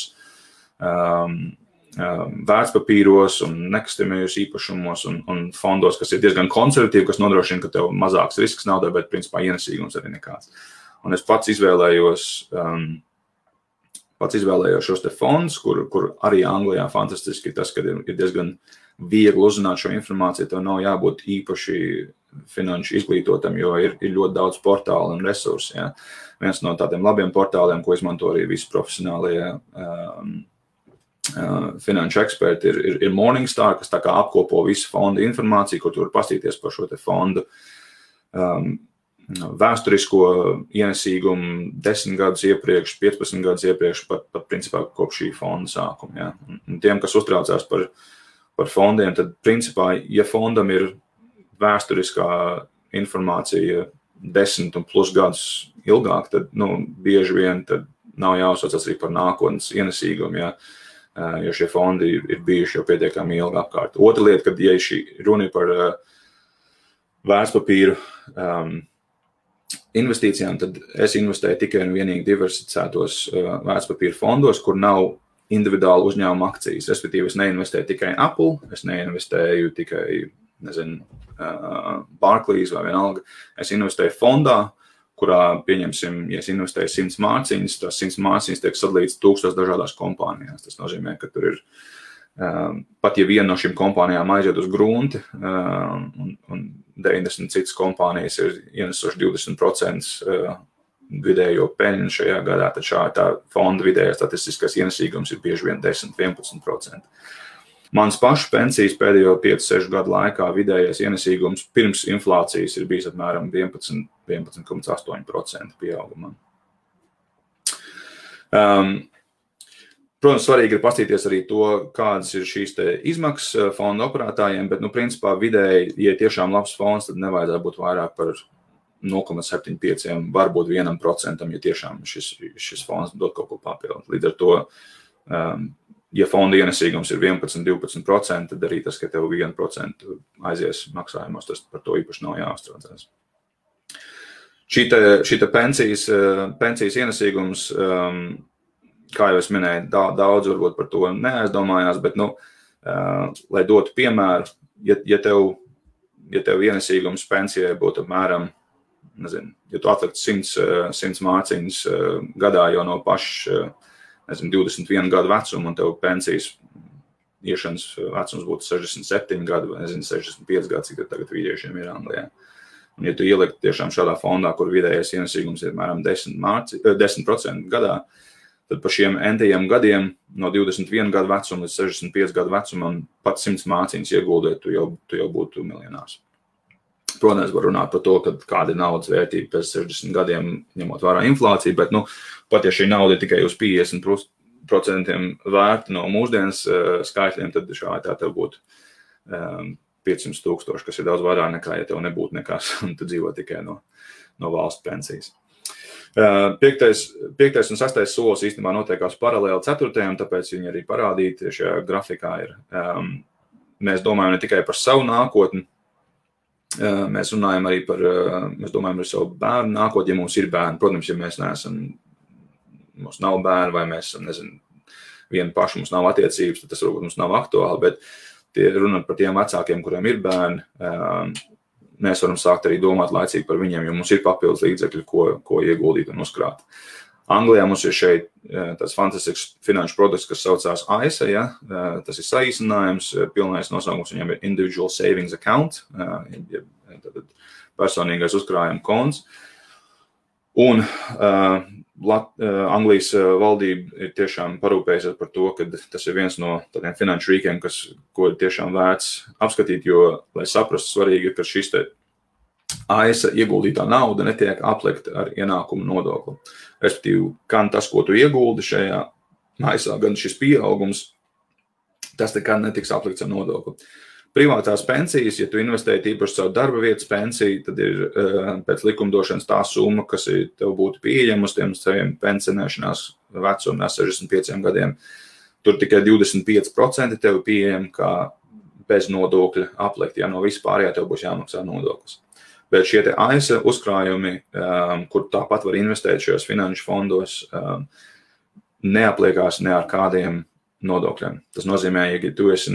vērtspapīros un nekustamajos īpašumos un fondos, kas ir diezgan konservatīvi, kas nodrošina, ka tev mazāks risks naudai, bet principā ienesīgums arī nekāds. Un es pats izvēlējos šos te fondus, kur arī Anglijā fantastiski tas, ka ir diezgan viegli uzzināt šo informāciju, tev nav jābūt īpaši finanšu izglītotam, jo ir ļoti daudz portālu un resursu. Ja. Viens no tādiem labiem portāliem, ko izmanto arī visi profesionālie finanšu eksperti, ir Morningstar, kas tā kā apkopo visu fondu informāciju, kur tu var pastīties par šo te fondu vēsturisko ienesīgumu 10 gadus iepriekš, 15 gadus iepriekš, pat principā kopš šī fonda sākuma. Ja. Un tiem, kas uztraucās par fondiem, tad principā, ja fondam ir vēsturiskā informācija 10 un plus gadus ilgāk, tad bieži vien tad nav jāuzsaucas arī par nākotnes ienesīgumu, ja, jo šie fondi ir bijuši jau pietiekami ilgi apkārt. Otra lieta, kad ja šī runa par vērtspapīru investīcijām, tad es investēju tikai un vienīgi diversificētos vērtspapīru fondos, kur nav individuāli uzņēmuma akcijas. Respektīvi, es neinvestēju tikai Apple, es neinvestēju tikai, Barclays vai vienalga. Es investēju fondā, kurā, pieņemsim, ja es investēju 100 mārciņas, tās 100 mārciņas tiek sadalīts 1000 dažādās kompānijās. Tas nozīmē, ka tur ir, pat ja viena no šīm kompānijām aiziet uz grunti, un 90 citas kompānijas ir ienesuši 20% vidējo peļņu šajā gadā, tad tā fonda vidējā statistiskais ienesīgums ir bieži vien 10-11%. Mans pašu pensijas pēdējo 5-6 gadu laikā vidējais ienesīgums pirms inflācijas ir bijis apmēram 11,8% pieaugumā. Protams, svarīgi ir pastīties arī to, kādas ir šīs te izmaksas fonda operētājiem, bet, principā vidēji, ja tiešām labs fonds, tad nevajadzētu būt vairāk par 0,75, varbūt 1%, ja tiešām šis fonds dod kaut ko papildināt. Līdz ar to, ja fonda ienesīgums ir 11-12%, tad arī tas, ka tev 1% aizies maksājumos, tas par to īpaši nav jāuztraucās. Šī pensijas ienesīgums, kā jau es minēju, daudz varbūt par to neaizdomājās, bet, lai dotu piemēru, ja tev ienesīgums pensijai būtu apmēram, ja tu atliktu 100 mārciņas gadā jau no paša, 21 gadu vecuma, un tev pensijas iešanas vecums būtu 67 gadu, vai 65 gadu, cik tagad vīriešiem ir Anglijā. Un ja tu ieliktu tiešām šādā fondā, kur vidējais ienesīgums ir apmēram 10% gadā, tad par šiem entajiem gadiem no 21 gadu vecuma līdz 65 gadu vecumam pat 100 mārciņas ieguldēt, tu jau būtu miljonārs. Protams, var runāt par to, kāda ir naudas vērtība pēc 60 gadiem, ņemot vērā inflāciju, bet, pat ja šī nauda ir tikai uz 50% vērta no mūsdienas skaitļiem, tad tā tev būtu 500,000, kas ir daudz vairāk nekā, ja tev nebūtu nekas, un tu dzīvo tikai no valsts pensijas. 5. un 6. solis īstenībā notiekās paralēli 4. tāpēc viņi arī parādīti šajā grafikā ir. Mēs domājam ne tikai par savu nākotni, mēs runājam arī mēs domājam par savu bērnu nākotni, ja mums ir bērni. Protams, ja mums nav bērni vai mēs esam, vieni paši, mums nav attiecības, tad tas varbūt mums nav aktuāli, bet runāt par tiem vecākiem, kuriem ir bērni, mēs varam sākt arī domāt laicīgi par viņiem, jo mums ir papildus līdzekļi, ko ieguldīt un uzkrāt. Anglijā mums ir šeit tāds fantastisks finanšu produkts, kas saucās AISA, ja? Tas ir saīsinājums, pilnais nosaukums viņam ir Individual Savings Account, personīgais uzkrājuma konts. Un Anglijas valdība ir tiešām parūpējusies par to, ka tas ir viens no tādiem finanšu rīkiem, ko ir tiešām vērts apskatīt, jo, lai saprastu, svarīgi ir, ka šis te AISA ieguldītā nauda netiek aplikta ar ienākumu nodokli. Respektīvi, gan tas, ko tu ieguldi šajā AISA, gan šis pieaugums tas nekad netiks aplikts ar nodokli. Privātās pensijas, ja tu investēji īpaši savu darba vietas pensiju, tad ir pēc likumdošanas tā summa, kas tev būtu pieejama uz tiem saviem pensionēšanās vecumā 65 gadiem. Tur tikai 25% tev pieejama kā bez nodokļa aplikt, ja no vispārējā tev būs jāmaksā nodoklis. Bet šie te ASA uzkrājumi, kur tāpat var investēt šajos finanšu fondos, neapliekās ne ar kādiem nodokļiem. Tas nozīmē, ja tu esi,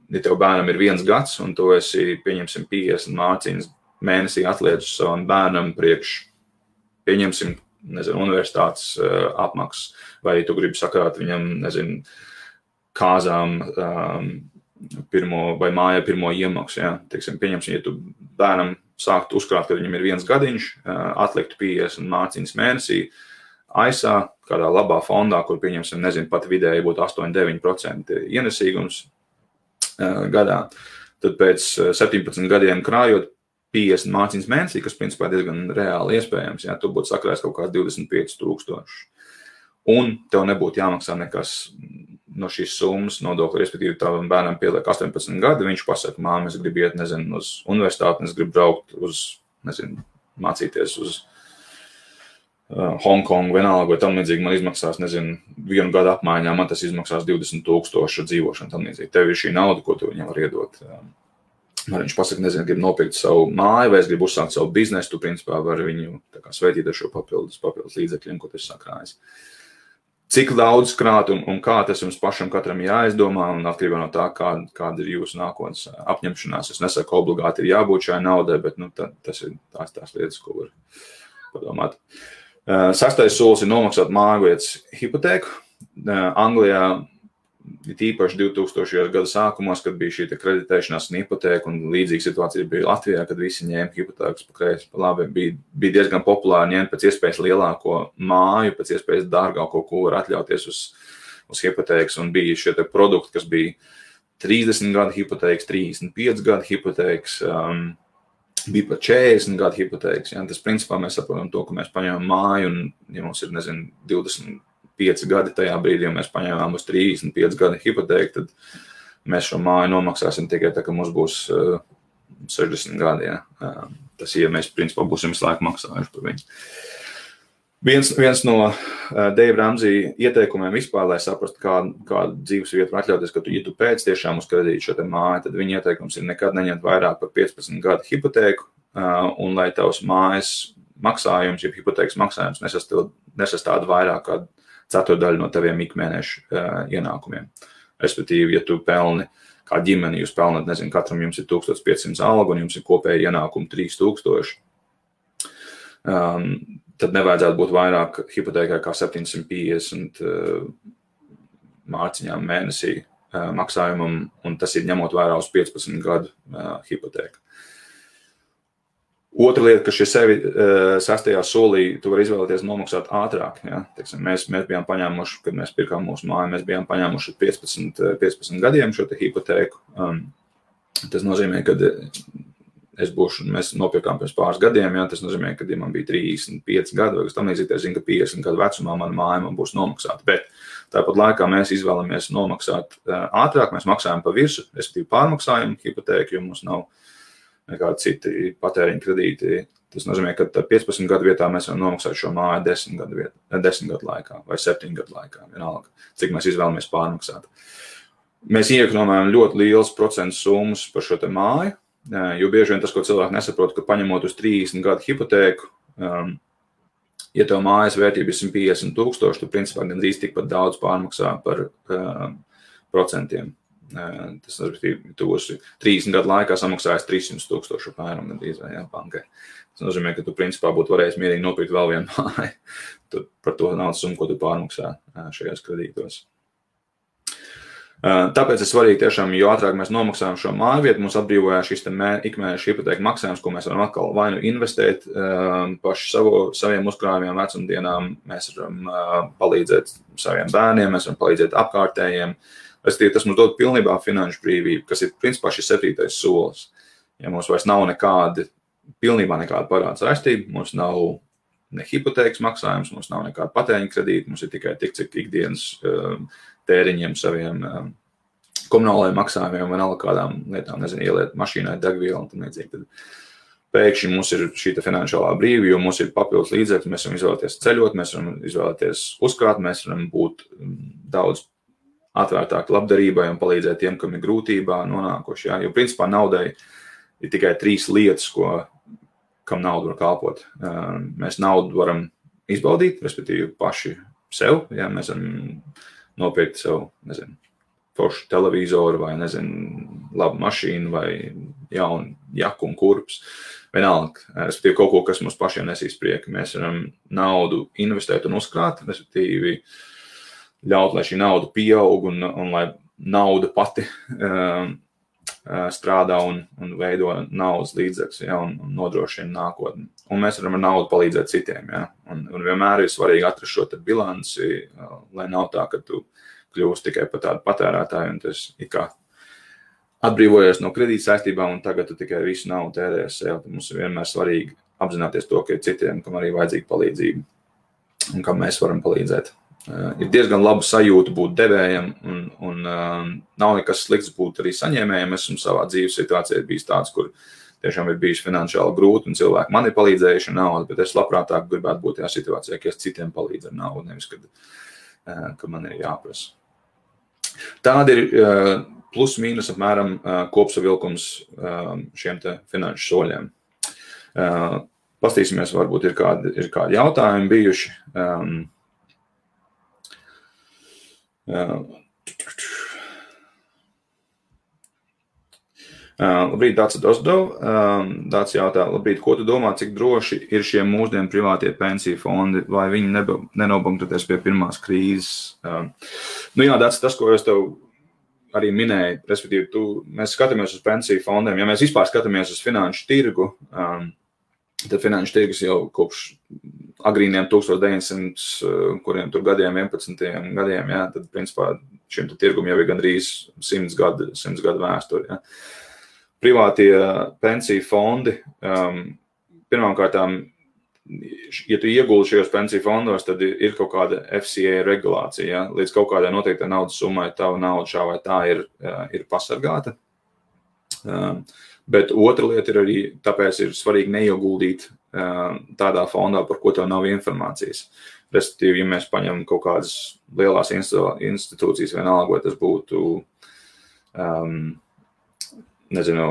ja tev bērnam ir 1 gads, un tu esi, pieņemsim, 50 mārciņas mēnesī atliedz savam bērnam priekš, pieņemsim, universitātes apmaksas, vai tu gribi sakrāt viņam, kāzām vai mājā pirmo iemaksu, ja? Teiksim, pieņemsim, ja tu bērnam sāktu uzkrāt, kad viņam ir 1 gadiņš, atliktu 50 mārciņas mēnesī, ASA, kādā labā fondā, kur pieņemsim, pat vidēji būtu 8-9% ienesīgums, gadā. Tad pēc 17 gadiem krājot 50 mārciņas mēnesī, kas principā diezgan reāli iespējams, ja tu būtu sakrājis kaut kāds 25,000. Un tev nebūtu jāmaksā nekas no šīs summas nodokļa, respektīvi tavam bērnam pieliek 18 gadi, viņš pasaka, māma, es gribu iet, uz universitāti, es gribu braukt uz, mācīties uz Hongkongu vienalga, vai tam līdzīgi man izmaksās, 1 gadu apmaiņā, man tas izmaksās 20,000 dzīvošana tam līdzīgi. Tev ir šī nauda, ko tu viņam var iedot. Man viņš pasaka, gribu nopirkt savu māju, vai es gribu uzsākt savu biznesu, tu principā vari viņu sveitīt ar šo papildus līdzekļiem, ko tu esi sakrājis. Cik daudz krāt un kā tas jums pašam katram jāizdomā, un atkarībā no tā, kāda ir jūsu nākotnes apņemšanās. Es nesaku, obligāti ir jābūt šai naudai, bet tas ir tās lietas, ko var padomāt. 6. solis ir nomaksāt mājvietas hipotēku. Anglijā īpaši 2000. Gada sākumos, kad bija šī kreditēšanās un hipotēka, un līdzīga situācija bija Latvijā, kad visi ņēma hipotēkas pa kreisi, pa labi, bija diezgan populāri ņemt pēc iespējas lielāko māju, pēc iespējas dārgāko, ko var atļauties uz hipotēkas, un bija šie produkti, kas bija 30 gadu hipotēkas, 35 gadu hipotēkas, bija pat 40 gadu hipotēkas. Ja? Tas principā mēs saprotam to, ka mēs paņemam māju, un ja mums ir, 25 gadi tajā brīdī, ja mēs paņēmām uz 35 gadu hipotēku, tad mēs šo māju nomaksāsim tikai tā, ka mums būs 60 gadi. Ja? Tas, ja mēs principā būsim visu laiku maksājuši par viņu. Viens no Dave Ramsey ieteikumiem vispār, lai saprastu, kādu dzīves vietu var atļauties, ka ja tu pēc tiešām uz kredītu šo te māju, tad viņa ieteikums ir nekad neņemt vairāk par 15 gadu hipotēku, un lai tavs mājas maksājums, ja hipotēkas maksājums nesastāda vairāk kā ceturdaļu no taviem ikmēnešu ienākumiem. Respektīvi, ja tu pelni kā ģimeni, jūs pelnat, katram jums ir 1500 algu un jums ir kopēji ienākumi 3000, tad nevajadzētu būt vairāk hipotēkai kā 750 mārciņām mēnesī maksājumam, un tas ir ņemot vērā uz 15 gadu hipotēku. Otra lieta, ka šie 6. solī tu vari izvēlēties nomaksāt ātrāk. Ja? Teiksim, mēs bijām paņēmuši, kad mēs pirkām mūsu māju, mēs bijām paņēmuši 15 gadiem šo te hipotēku. Tas nozīmē, ka mēs nopirkām pirms pāris gadiem, ja? Tas nozīmē, ka ja man bija 35 gadi, vai kas tam līdzīgi, es zinu, ka 50 gadu vecumā mana māja man būs nomaksāta. Bet tāpat laikā mēs izvēlamies nomaksāt ātrāk, mēs maksājam pa virsu, respektīvi pārmaksājam hipotēku, jo mums nav nekādi citi patēriņa kredīti. Tas nozīmē, ka 15 gadu vietā mēs varam nomaksāt šo māju 10 gadu laikā vai 7 gadu laikā, vienalga, cik mēs izvēlamies pārmaksāt. Mēs iekonomējam ļoti liels procentu summas par šo te māju, jo bieži vien tas, ko cilvēki nesaprot, ka paņemot uz 30 gadu hipotēku, ja tev mājas vērtība ir 150,000, tu principā gandrīz tikpat daudz pārmaksā par procentiem. Tas tu būsi 30 gadu laikā samaksājis 300,000 apmēram gandrīz bankai. Tas nozīmē, ka tu principā būtu varējis mierīgi nopirkt vēl vienu māju par to naudas summu, ko tu pārmaksā šajos kredītos. Tāpēc ir svarīgi tiešām, jo ātrāk mēs nomaksājam šo māju vietu, mums atbrīvojās šis ikmēneša hipotēka maksājums, ko mēs varam atkal vai nu investēt paši saviem uzkrājumiem vecumdienām, mēs varam palīdzēt saviem bērniem, mēs varam palīdzēt apkārtējiem. Tas mums dod pilnībā finanšu brīvību, kas ir principā šis 7. solis. Ja mums vairs nav pilnībā nekāda parāda saistība, mums nav ne hipotēkas maksājums, mums nav nekāda patēriņa kredīta, mums ir tikai tik, cik ikdienas tēriņiem saviem komunālajiem maksājumiem, vienalga kādām lietām, nezinu, ieliet mašīnai degvielu un tam līdzīgi. Tad pēkšņi mums ir šī finansiālā brīvība, jo mums ir papildus līdzekļi, mēs varam izvēlēties ceļot, mēs varam izvēlēties uzkrāt, mēs varam būt daudz atvērtāki labdarībai un palīdzēt tiem, kam ir grūtībā nonākuši. Ja? Jo principā naudai ir tikai 3 lietas, kam nauda var kalpot. Mēs naudu varam izbaudīt, respektīvi paši sev, ja mēs varam nopirkt sev, nezinu, foršu televizoru vai, nezinu, labu mašīnu vai jaunu jaku un kurpes. Vienalga, respektīvi kaut ko, kas mums pašiem nesīs prieku. Mēs varam naudu investēt un uzkrāt, respektīvi ļaut, lai šī nauda pieaug un lai nauda pati strādā un veido naudas līdzekļus, ja, un nodrošina nākotni. Un mēs varam ar naudu palīdzēt citiem. Ja. Un vienmēr ir svarīgi atrast šo bilanci, lai nav tā, ka tu kļūst tikai par tādu patērētāju un tas ir kā atbrīvojies no kredīta saistībām un tagad tu tikai visu naudu tērējies sev. Mums ir vienmēr svarīgi apzināties to, ka ir citiem, kam arī vajadzīga palīdzība un kam mēs varam palīdzēt. Ir diezgan laba sajūta būt devējam un nav nekas slikts būt arī saņēmējiem. Es esmu savā dzīves situācijā bijis tāds, kur tiešām ir bijis finansiāli grūti un cilvēki man ir palīdzējuši ar naudu, bet es labprātāk gribētu būt tajā situācijā, ka es citiem palīdzu ar naudu, nevis, kad man ir jāprasa. Tāda ir plus mīnus apmēram kopsavilkums šiem te finanšu soļiem. Pastīsimies, varbūt ir kādi jautājumi bijuši. Labrīt, Dācis Dosdov. Dācis jautā, labrīt, ko tu domā, cik droši ir šie mūsdienu privātie pensiju fondi, vai viņi nenobankrotēs pie pirmās krīzes? Jā, Dācis, tas, ko es tev arī minēju, respektīvi, mēs skatāmies uz pensiju fondiem, ja mēs vispār skatāmies uz finanšu tirgu, tad finanšu tirgus jau kopš agrīniem 1900, kuriem tur gadiem, 11. gadiem, ja, tad principā šim tirgum jau ir gandrīz 100 gadu vēsturi. Ja. Privātie pensiju fondi, pirmkārtām, ja tu ieguldi šajos pensiju fondos, tad ir kaut kāda FCA regulācija. Ja? Līdz kaut kādai noteiktai naudas summai tava nauda šā vai tā ir pasargāta. Bet otra lieta ir arī, tāpēc ir svarīgi neieguldīt tādā fondā, par ko tev nav informācijas. Respektīvi, ja mēs paņemam kaut kādas lielās institūcijas, vienalga, vai tas būtu nezinu,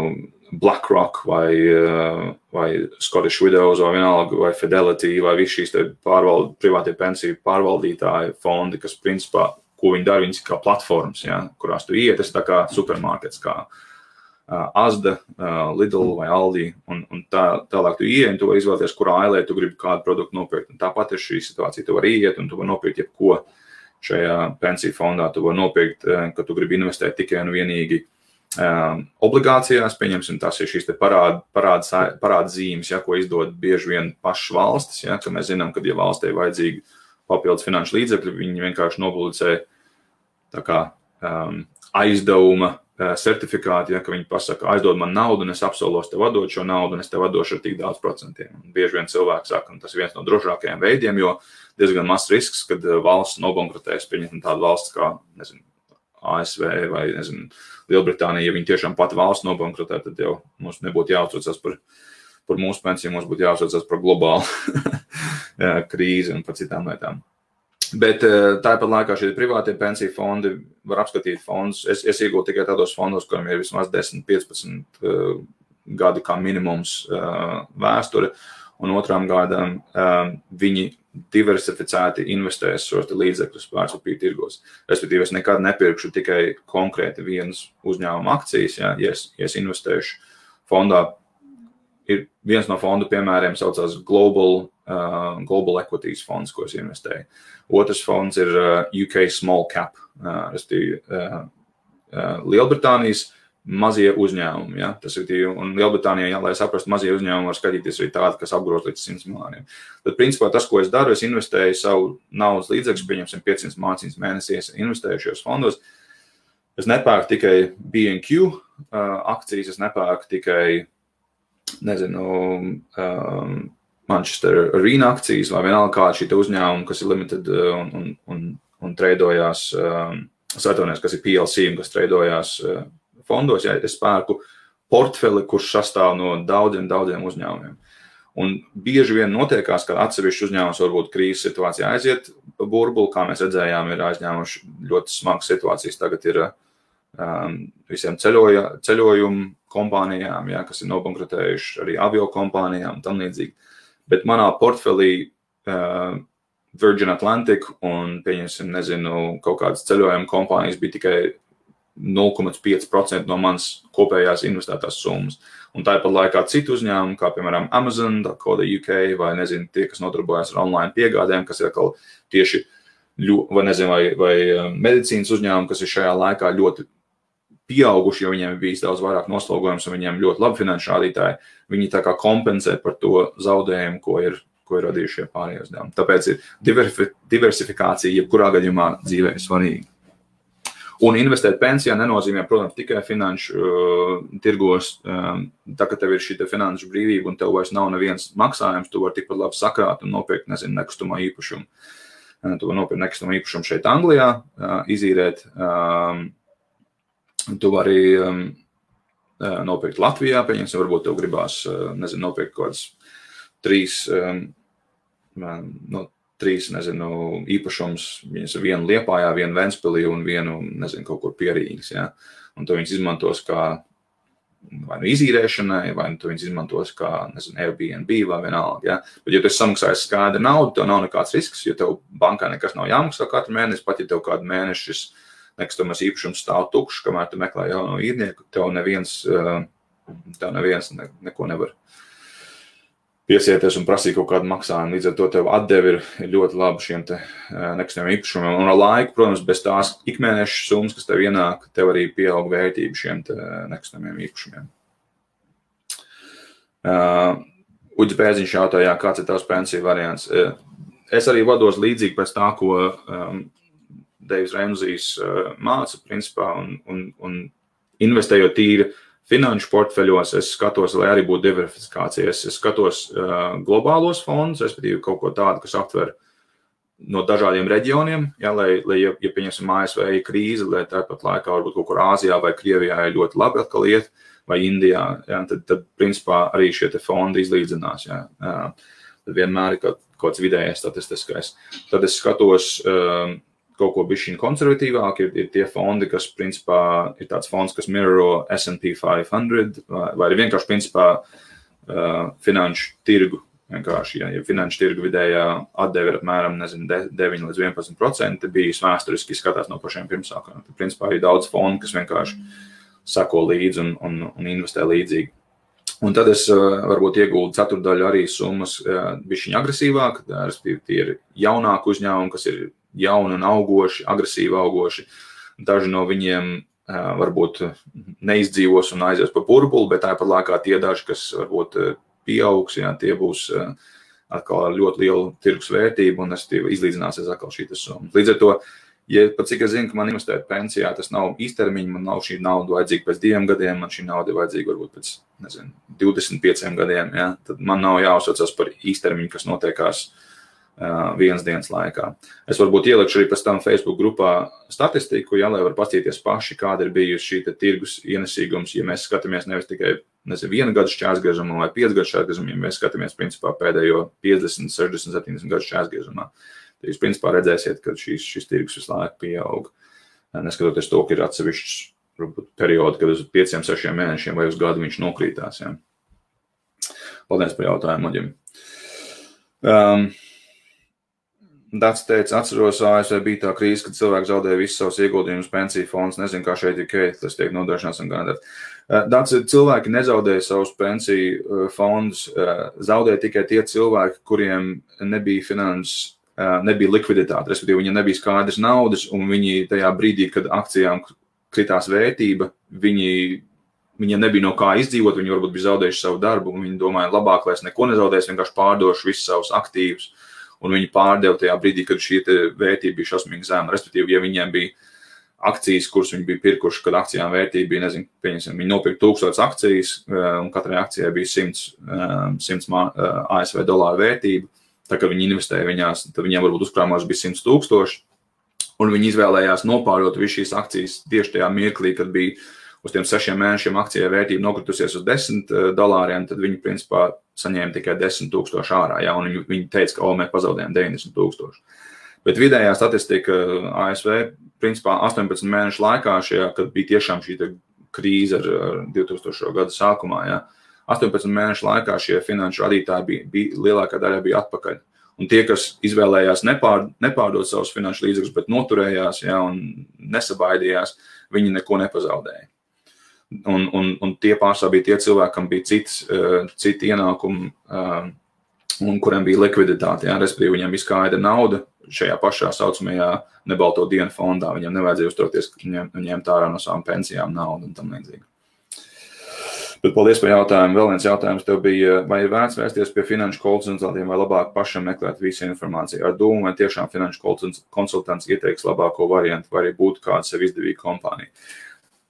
BlackRock vai Scottish Widows vai vienalga, vai Fidelity vai visi šīs privātie pensiju pārvaldītāji fondi, kas principā, ko viņi dara, viņas kā platformas, ja, kurās tu iet, tas tā kā supermarkets, kā Asda, Lidl vai Aldi, un tālāk tu ieej, un tu vari izvēlēties, kurā ailē tu gribi kādu produktu nopirkt. Un tāpat ir šī situācija, tu vari iet, un tu vari nopirkt jebko šajā pensiju fondā, tu vari nopirkt, ka tu gribi investēt tikai un vienīgi obligācijās, pieņemsim, tas ir šīs te parādzīmes, ja, ko izdod bieži vien pašas valstis, ja, ka mēs zinām, ka, ja valstī ir vajadzīgi papildus finanšu līdzekļi, viņi vienkārši nopublicē tā kā aizdevuma certifikāti, ja, ka viņi pasaka, aizdod man naudu, un es apsolos tev atdot šo naudu, un es tev atdošu ar tik daudz procentiem. Un bieži vien cilvēki saka, un tas ir viens no drošākajiem veidiem, jo diezgan mazs risks, kad valsts nobankrotēs, pieņemsim tādu valsts kā, nezinu, ASV vai, nezinu, Lielbritānija, ja viņi tiešām pati valsts nobankrotē, tad jau mums nebūtu jāuztraucas par mūsu pensiju, mums būtu jāuztraucas par globālu krīzi un par citām lietām. Bet tāpat laikā šie privātie pensiju fondi var apskatīt fondus. Es iegūtu tikai tādos fondos, kuriem ir vismaz 10-15 gadi kā minimums vēsture, un otrām gadām viņi diversificēti investēs šos līdzekļus vērtspapīru tirgos. Respektīvi, es nekad nepirkšu tikai konkrēti vienas uzņēmuma akcijas, ja es investēšu fondā. Ir viens no fondu piemēriem saucās Global Equities fonds, ko es investēju. Otrs fonds ir UK Small Cap, Lielbritānijas mazie uzņēmumi. Ja? Tas ir, un Lielbritānijā, ja, lai saprastu, mazie uzņēmumi var skatīties arī tādi, kas apgrūst līdz 100 miljoniem. Tad, principā, tas, ko es daru, es investēju savu naudas līdzekļus, pieņemsim 500 mārciņas mēnesī, es investēju šajos fondos. Es nepērku tikai B&Q akcijas, es nepērku tikai, nezinu, Manchester Arena akcijas vai vienalga kāda šī uzņēmuma, kas ir limited un treidojās kas ir PLC un kas treidojās fondos, ja es pērku portfeli, kurš sastāv no daudziem uzņēmumiem. Un bieži vien notiekās, ka atsevišķi uzņēmums varbūt krīzes situācijā aiziet burbuli, kā mēs redzējām, ir aizņēmuši ļoti smagas situācijas. Tagad ir visiem ceļojumu kompānijām, ja, kas ir nobankrotējuši, arī avio kompānijām un tam līdzīgi. Bet manā portfelī Virgin Atlantic un, pieņemsim, kaut kādas ceļojuma kompānijas bija tikai 0,5% no manas kopējās investētās summas. Un tāpat laikā citu uzņēmumu, kā piemēram Amazon, Koda UK, vai tie, kas nodarbojas ar online piegādēm, kas ir atkal tieši, vai medicīnas uzņēmumi, kas ir šajā laikā ļoti pieauguši, jo viņiem ir bijis daudz vairāk noslogojums un viņiem ļoti labi finanšu rādītāji, viņi tā kā kompensē par to zaudējumu, ko ir radījuši šie pārējie uzdevumi. Tāpēc ir diversifikācija, jebkurā gadījumā dzīvē ir svarīga. Un investēt pensijā nenozīmē, protams, tikai finanšu tirgos. Tā, ka tev ir šī finanšu brīvība un tev vairs nav neviens maksājums, tu vari tikpat labi sakrāt un nopirkt, nekustamā īpašumu. Tu vari nopirkt nekustamā īpašumu šeit Anglijā, izīrēt. Tu vari nopirkt Latvijā, pieņemsim, varbūt tev gribās, nopirkt kaut kādas trīs īpašums, vienu Liepājā, vienu Ventspilī un vienu, kaut kur pie Rīgas, ja? Un tu viņus izmantos kā vai izīrēšanai, vai tu viņus izmantos kā, Airbnb vai vienalga, ja? Bet, ja tu esi samaksājis skaidru naudu, tev nav nekāds risks, jo tev bankā nekas nav jāmaksā katru mēnesi, pat ja tev kādu mēneši šis nekustamais īpašums stāv tukšs, kamēr tu meklē jauno īrnieku, tev neviens neko nevar piesieties un prasīt kaut kādu maksājumu. Līdz ar to tev atdevi ir ļoti labi šiem te nekustamiem īpašumiem. Un ar laiku, protams, bez tās ikmēneša summas, kas tev ienāk, tev arī pieaug vērtība šiem te nekustamiem īpašumiem. Uģis Bēziņš jautāja, kāds ir tavs pensiju variants. Es arī vados līdzīgi pēc tā, ko Deivs Remzijs māca, principā, un investējot tīri finanšu portfeļos, es skatos, lai arī būtu diversifikācija. Es skatos globālos fondus, respektīvi kaut ko tādu, kas aptver no dažādiem reģioniem, ja, ja pieņemsim ASV krīze, lai tāpat laikā varbūt kaut kur Āzijā vai Krievijā ir ļoti labi atkal iet, vai Indijā, ja, tad principā arī šie te fondi izlīdzinās. Ja. Tad vienmēr ir kaut kāds vidējais statistiskais. Tad es skatos kaut ko bišķiņ konservatīvāk, ir tie fondi, kas principā ir tāds fonds, kas mirror S&P 500, vai ir vienkārši principā finanšu tirgu. Vienkārši, ja finanšu tirgu vidējā atdeve ir apmēram, 9 līdz 11%, bijis vēsturiski skatās no pašiem pirmsākām. Tad principā ir daudz fondu, kas vienkārši sako līdzi un investē līdzīgi. Un tad es varbūt ieguldu ceturdaļu arī summas bišķiņ agresīvāk, respektīvi tie ir jaunāki uzņēmumi, kas ir jauni un augoši, agresīvi augoši. Daži no viņiem varbūt neizdzīvos un aizies pa burbuli, bet tāpat laikā tie daži, kas varbūt pieaugs, ja, tie būs atkal ar ļoti lielu tirgus vērtību un izlīdzināsies atkal šī summa. Līdz ar to, ja pat cik es zinu, ka man investēt pensijā, tas nav īstermiņa, man nav šī nauda vajadzīga pēc 2 gadiem, man šī nauda ir vajadzīga varbūt pēc, 25 gadiem, ja, tad man nav jāuzsaucas par īstermiņu, kas notiekās vienas dienas laikā. Es varbūt ielikšu arī pēc tam Facebook grupā statistiku, ja, lai var paskatīties paši, kāda ir bijusi šī tirgus ienesīgums, ja mēs skatāmies nevis tikai 1 gadu šķērsgriežumā vai 5 gadu šķērsgriežumā, ja mēs skatāmies principā pēdējo 50, 60, 70 gadu šķērsgriežumā. Tad jūs principā redzēsiet, ka šis tirgus visu laiku pieaug. Neskatoties to, ka ir atsevišķs periodi, kad uz 5, 6 mēnešiem vai uz gadu viņš nokrītās. Ja. Paldies par jautājumu, Oģim. Dats teica, atceros, ASV bija tā krīze, kad cilvēki zaudēja visus savus ieguldījumus pensiju fonds. Nezinu, kā šeit ir, tas tiek nodrošināts un garantēts. Dats, cilvēki nezaudēja savus pensiju fondus, zaudēja tikai tie cilvēki, kuriem nebija likviditāte, respektīvi viņiem nebija skaidrs naudas, un viņi tajā brīdī, kad akcijām kritās vērtība, viņiem nebija no kā izdzīvot, viņi varbūt bija zaudējuši savu darbu, un viņi domāja, labāk, lai es neko nezaudēšu, vienkārši pārdošu visus savus aktīvus. Un viņi pārdeva tajā brīdī, kad šī vērtība bija šausmīgi zema. Respektīvi, ja viņiem bija akcijas, kuras viņi bija pirkuši, kad akcijām vērtība bija, pieņemsim, viņi nopirka 1000 akcijas, un katrai akcijai bija 100 ASV dolāru vērtība. Tā kā viņi investēja viņās, tad viņiem varbūt uzkrājumos bija 100 000, un viņi izvēlējās nopārdot visu šīs akcijas tieši tajā mirklī, kad bija uz tiem 6 mēnešiem akcijai vērtība nokritusies uz $10, tad viņi principā saņēma tikai 10,000 ārā, ja, un viņi teica, ka mēs pazaudējām 90,000. Bet vidējā statistika ASV principā 18 mēnešu laikā, kad bija tiešām šī krīze ar 2000. Gada sākumā, ja, 18 mēnešu laikā šie finanšu radītāji bija lielākā daļa bija atpakaļ. Un tie, kas izvēlējās nepārdot savus finanšu līdzekļus, bet noturējās, ja, un nesabaidījās, viņi neko nepazaudēja. Un tie pārsvarā bija tie cilvēki, kam bija citi ienākumi, un kuriem bija likviditāte, ja, respektīvi viņiem izskaida nauda šajā pašā saucamajā nebalto dienu fondā. Viņiem nevajadzēja uzturēties, ka ņemt ārā no savām pensijām naudu un tam līdzīgi. Bet paldies par jautājumu. Vēl viens jautājums tev bija, vai ir vērts vērsties pie finanšu konsultantiem vai labāk pašam meklēt visu informāciju? Ar domu, vai tiešām finanšu konsultants ieteiks labāko variantu, vai arī būtu kāda sev izdevīga kompānija?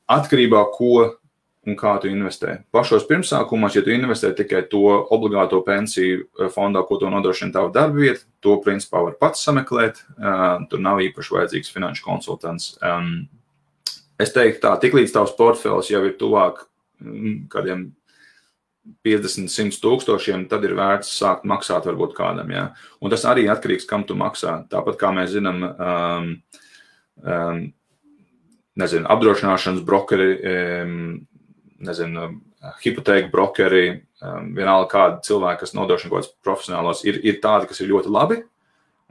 Atkarībā, ko un kā tu investē. Pašos pirmsākumos, ja tu investē tikai to obligāto pensiju fondā, ko tu nodrošina tavu darba vietu, to principā var pats sameklēt, tur nav īpaši vajadzīgs finanšu konsultants. Es teiktu tā, tiklīdz tavs portfels jau ir tuvāk kādiem 50-100 tūkstošiem, tad ir vērts sākt maksāt varbūt kādam, jā. Un tas arī atkarīgs, kam tu maksā. Tāpat kā mēs zinām, apdrošināšanas brokeri, hipotēku brokeri, vienalga kādi cilvēki, kas nodrošina kaut kāds profesionālos, ir tādi, kas ir ļoti labi,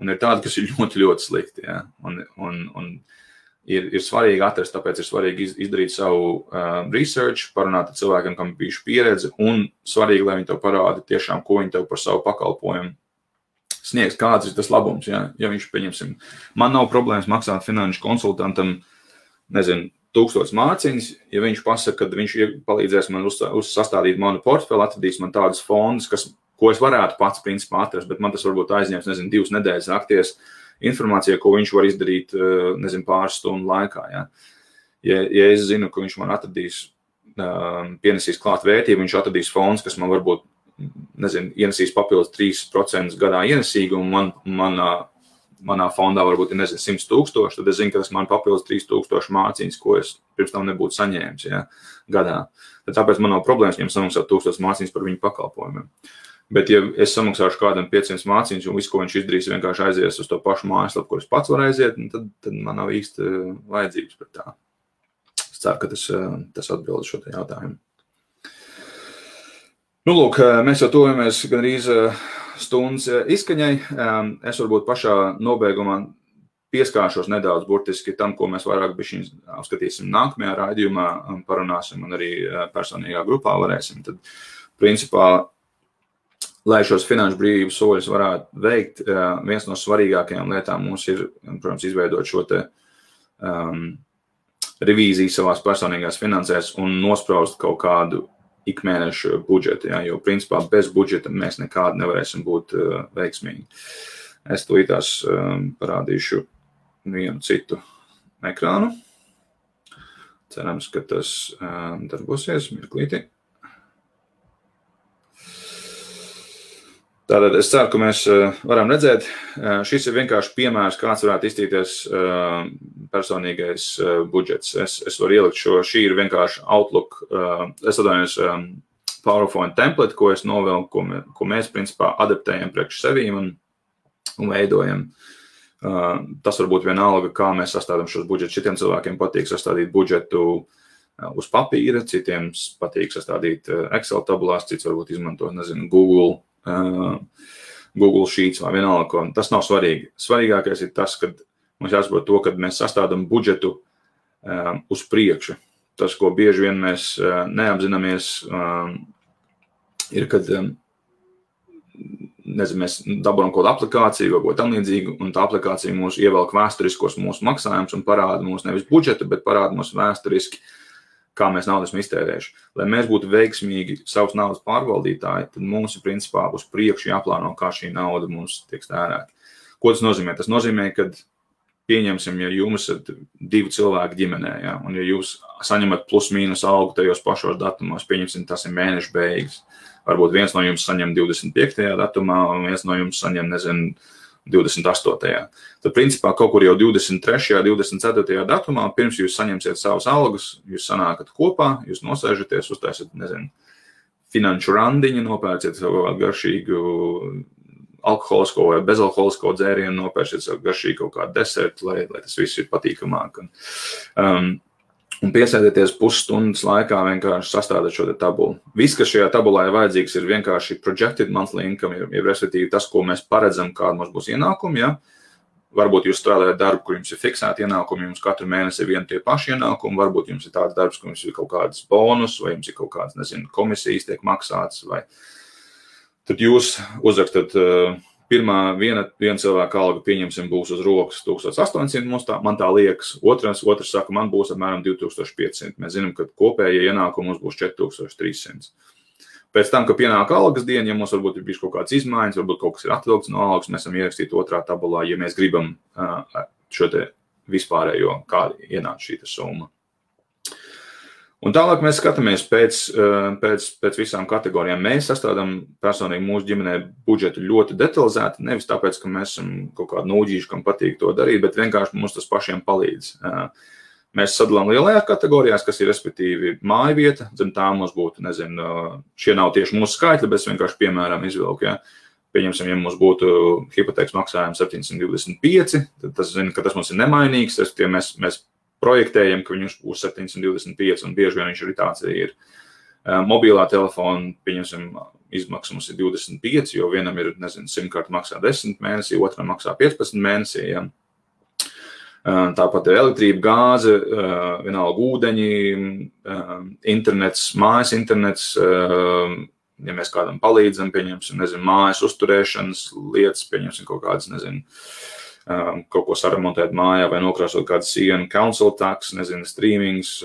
un ir tādi, kas ir ļoti, ļoti slikti, jā. Un ir svarīgi atrast, tāpēc ir svarīgi izdarīt savu research, parunāt ar cilvēkiem, kam ir bijuši pieredze, un svarīgi, lai viņi tev parāda tiešām, ko viņi tev par savu pakalpojumu sniegs, kāds ir tas labums, ja viņš, pieņemsim, man nav problēmas maksāt finanšu konsultantam, 1000 mārciņas, ja viņš pasaka, ka viņš palīdzēs man sastādīt manu portfeli, atradīs man tādas fondus, ko es varētu pats principā atrast, bet man tas varbūt aizņems, 2 nedēļas nakties informācija, ko viņš var izdarīt, pāris stundu laikā. Ja, ja es zinu, ka viņš man atradīs, pienesīs klāt vērtību, viņš atradīs fondus, kas man varbūt, ienesīs papildus 3% gadā ienesīgumu, manā fondā varbūt ir, 100,000, tad es zinu, ka tas man papildus 3,000 mārciņas, ko es pirms tam nebūtu saņēmis, ja, gadā. Tad tāpēc man nav problēmas viņam samaksāt 1000 mārciņas par viņu pakalpojumiem. Bet, ja es samaksāšu kādam 500 mārciņas un visu, ko viņš izdarīs, vienkārši aizies uz to pašu mājaslapu, kur es pats varu aiziet, tad man nav īsti vajadzības par tā. Es ceru, ka tas atbild šo te jautājumu. Nu, lūk, mēs jau tojamies gandrīz stundas izskaņai. Es varbūt pašā nobeigumā pieskāršos nedaudz burtiski tam, ko mēs vairāk bišķiņ apskatīsim nākamajā raidījumā, parunāsim un arī personīgā grupā varēsim. Tad, principā, lai šos finanšu brīvības soļus varētu veikt, viens no svarīgākajām lietām mums ir, protams, izveidot šo te revīziju savās personīgās finansēs un nospraust kaut kādu ikmēnešu budžetu, ja, jo, principā, bez budžeta mēs nekādi nevarēsim būt veiksmīgi. Es tūlītās parādīšu vienu citu ekrānu. Cerams, ka tas darbosies mirklīti. Tātad es ceru, ka mēs varam redzēt, šis ir vienkārši piemērs, kāds varētu iztīties personīgais budžets. Es varu ielikt šī ir vienkārši Outlook, es atvainojos PowerPoint template, ko es novelku, ko mēs principā adaptējam priekš sevīm un veidojam. Tas varbūt vienalga, kā mēs sastādām šos budžetus. Šitiem cilvēkiem patīk sastādīt budžetu uz papīra, citiem patīk sastādīt Excel tabulās, cits varbūt izmanto, Google Sheets vai vienalga. Tas nav svarīgi. Svarīgākais ir tas, ka mums jāsaprot to, ka mēs sastādām budžetu uz priekšu. Tas, ko bieži vien mēs neapzināmies, ir, kad mēs dabūjam kaut kādu aplikāciju vai ko tam līdzīgu, un tā aplikācija mūs ievelk vēsturiskos mūsu maksājumus un parāda mūs nevis budžetu, bet parāda mūs vēsturiski, kā mēs naudu esam iztērējuši. Lai mēs būtu veiksmīgi savas naudas pārvaldītāji, tad mums ir principā uz priekšu jāplāno, kā šī nauda mums tiek tērēta. Ko tas nozīmē? Tas nozīmē, ka pieņemsim, ja jums ir 2 cilvēki ģimenē, ja, un ja jūs saņemat plus mīnus algu tajos pašos datumos, pieņemsim, tas ir mēneša beigas. Varbūt viens no jums saņem 25. datumā, un viens no jums saņem, 28. Tad, principā, kaut kur jau 23. 24. datumā, pirms jūs saņemsiet savus algas, jūs sanākat kopā, jūs nosēžaties, uztaisat, finanšu randiņu, nopērciet savu garšīgu alkoholisko vai bezalkoholisko dzērienu, nopērciet savu garšīgu kaut kādu desertu, lai tas viss ir patīkamāk. Un piesēdieties pusstundas laikā vienkārši sastādāt šo tabulu. Viss, kas šajā tabulā ir vajadzīgs, ir vienkārši projected monthly income, respektīvi tas, ko mēs paredzam, kāda mums būs ienākumi. Ja? Varbūt jūs strādājat darbu, kur jums ir fiksēti ienākumi, jums katru mēnesi ir vieni tie paši ienākumi, varbūt jums ir tāds darbs, kur jums ir kaut kādas bonus, vai jums ir kaut kādas, komisijas tiek maksātas, vai tad jūs uzrakstat viena cilvēka alga, pieņemsim, būs uz rokas 1800, man tā liekas, otrs saka, man būs apmēram 2500. Mēs zinām, ka kopējie ienākumi mums būs 4300. Pēc tam, kad pienāk algas diena, ja mums varbūt ir bijis kaut kāds izmaiņas, varbūt kaut kas ir atvilkts no algas, mēs esam ierakstīti otrā tabulā, ja mēs gribam šo te vispārējo, kāda ienāca šī summa. Un tālāk mēs skatāmies pēc visām kategorijām. Mēs sastādām personīgi mūsu ģimenē budžetu ļoti detalizēti, nevis tāpēc, ka mēs esam kaut kādi nūģīši, kam patīk to darīt, bet vienkārši mums tas pašiem palīdz. Mēs sadalām lielajās kategorijās, kas ir respektīvi māja vieta, zem tā mums būtu, šie nav tieši mūsu skaitļi, bet es vienkārši piemēram izvilku, ja. Pieņemsim, ja mums būtu hipotēkas maksājums 725, tad tas zina, ka tas mums ir nemainīgs, mēs projektējam, ka viņš būs 725, un bieži vien viņš arī tāds ir. Mobilā telefona, pieņemsim, izmaksas mums ir 25, jo vienam ir, simkarta maksā 10 mēnesī, otram maksā 15 mēnesī. Ja. Tāpat ir elektrība, gāze, vienalga ūdeņi, internets, mājas internets, ja mēs kādam palīdzam, pieņemsim, mājas uzturēšanas lietas, pieņemsim kaut kādas, kaut ko saremontēt mājā vai nokrāsot kādu sienu, council tax, streamings,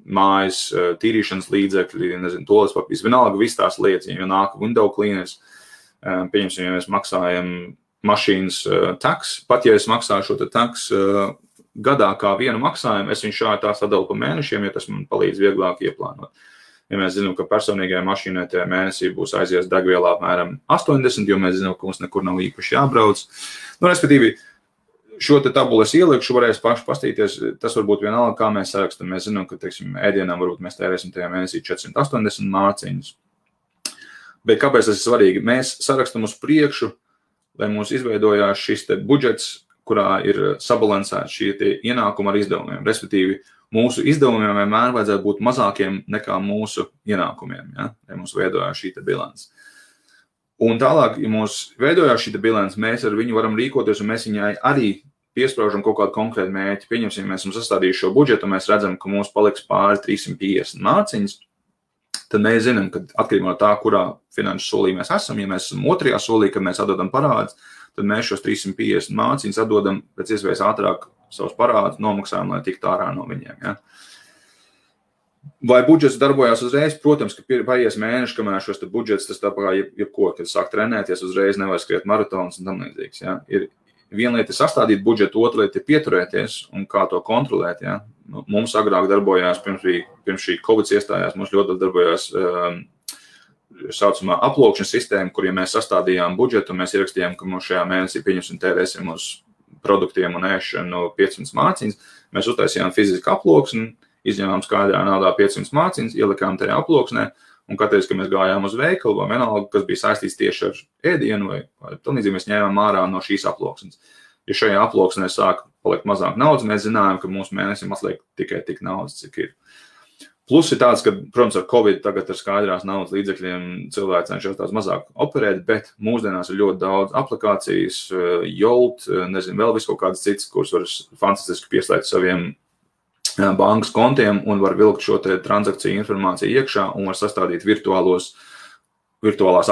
mājas tīrīšanas līdzekļi, toalet papīrs, vienalga viss tās lietas, ja nāk window cleaners, pieņemsim, ja mēs maksājam mašīnas tax, pat ja es maksāju šo tax gadā kā vienu maksājumu, es viņu šādi tā sadalu pa mēnešiem, ja tas man palīdz vieglāk ieplānot. Ja mēs zinām, ka personīgajai mašīnai tajā mēnesī būs aizies degvielā apmēram 80, jo mēs zinām, ka mums nekur nav īpaši jābrauc. Respektīvi, šo te tabulu es ielikšu, varēs paši pastīties, tas varbūt vienalga, kā mēs sarakstam. Mēs zinām, ka, ēdienām varbūt mēs tērēsim tajā mēnesī 480 mārciņas. Bet kāpēc tas ir svarīgi? Mēs sarakstam uz priekšu, lai mums izveidojās šis te budžets, kurā ir sabalansēts šie tie ienākumi ar izdevumiem. Respektīvi, mūsu izdevumiem vienmēr vajadzētu būt mazākiem nekā mūsu ienākumiem, ja mums veidojās šī bilance. Un tālāk, ja mums veidojās šī bilance, mēs ar viņu varam rīkoties, un mēs viņai arī piespraužam kaut kādu konkrētu mērķi. Pieņemsim, mēs esam sastādījuši šo budžetu, un mēs redzam, ka mums paliks pāri 350 mārciņas, tad mēs zinām, ka atkarībā no tā, kurā finanšu solī mēs esam, ja mēs esam otrajā solī, kad mēs atdodam parādus, tad mēs šos 350 mārciņas atdodam pēc iespējas ātrāk savus parādus, nomaksājam, lai tiktu ārā no viņiem. Ja? Vai budžets darbojās uzreiz? Protams, ka paies mēneši, kamēr šos budžets, tas tā kā jebko, kad sāk trenēties, uzreiz nevar skriet maratons un tam līdzīgs. Ja? Ir viena lieta ir sastādīt budžetu, otra lieta ir pieturēties un kā to kontrolēt. Ja? Mums agrāk darbojās, pirms šī Covid iestājās, mums ļoti darbojās saucamā aplokšanas sistēma, kur, ja mēs sastādījām budžetu, mēs ierakstījām, ka mums šajā mēnesī pieņemsim tērēsim uz produktiem un ēšanu 500 mārciņas, mēs uztaisījām fizisku aploksni, izņēmām skaidrā naudā 500 mārciņas, ielikām tajā aploksnē, un katreiz, kad mēs gājām uz veikalu vai vienalga, kas bija saistīts tieši ar ēdienu vai tālīdzīgi, mēs ņēmām ārā no šīs aploksnes. Ja šajā aploksnē sāk palikt mazāk naudas, mēs zinājām, ka mūsu mēnesim atliek tikai tik naudas, cik ir. Plus ir tāds, ka, protams, ar Covid tagad ar skaidrās naudas līdzekļiem cilvēki cenšas tās mazāk operēt, bet mūsdienās ir ļoti daudz aplikācijas, Jolt, vēl visu kaut kādas citas, kuras var fantastiski pieslēgt saviem bankas kontiem un var vilkt šo te transakciju informāciju iekšā un var sastādīt virtuālās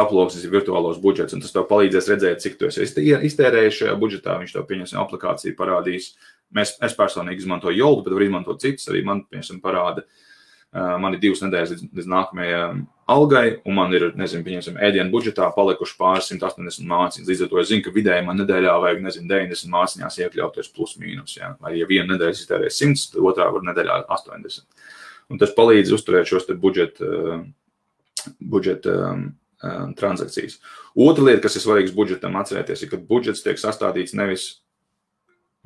aploksnes, virtuālos budžets, un tas tev palīdzēs redzēt, cik tu esi iztērējis šajā budžetā, viņš tev pieņemsim aplikāciju parādīs. Es personīgi izmantoju Jolt, bet var izmantot citus, arī man, pieņemsim, parāda. Man ir 2 nedēļas līdz nākamajai algai, un man ir, pieņemsim, ēdienu budžetā palikuši pāris 180 mārciņas. Līdz ar to es zinu, ka vidēji man nedēļā vajag, 90 mārciņās iekļauties plus mīnus. Ja? Vai ja viena nedēļas iztērē 100, tad otrā var nedēļā 80. Un tas palīdz uzturēt šos te budžeta transakcijas. Otra lieta, kas ir svarīgs budžetam atcerēties, ir, ka budžets tiek sastādīts nevis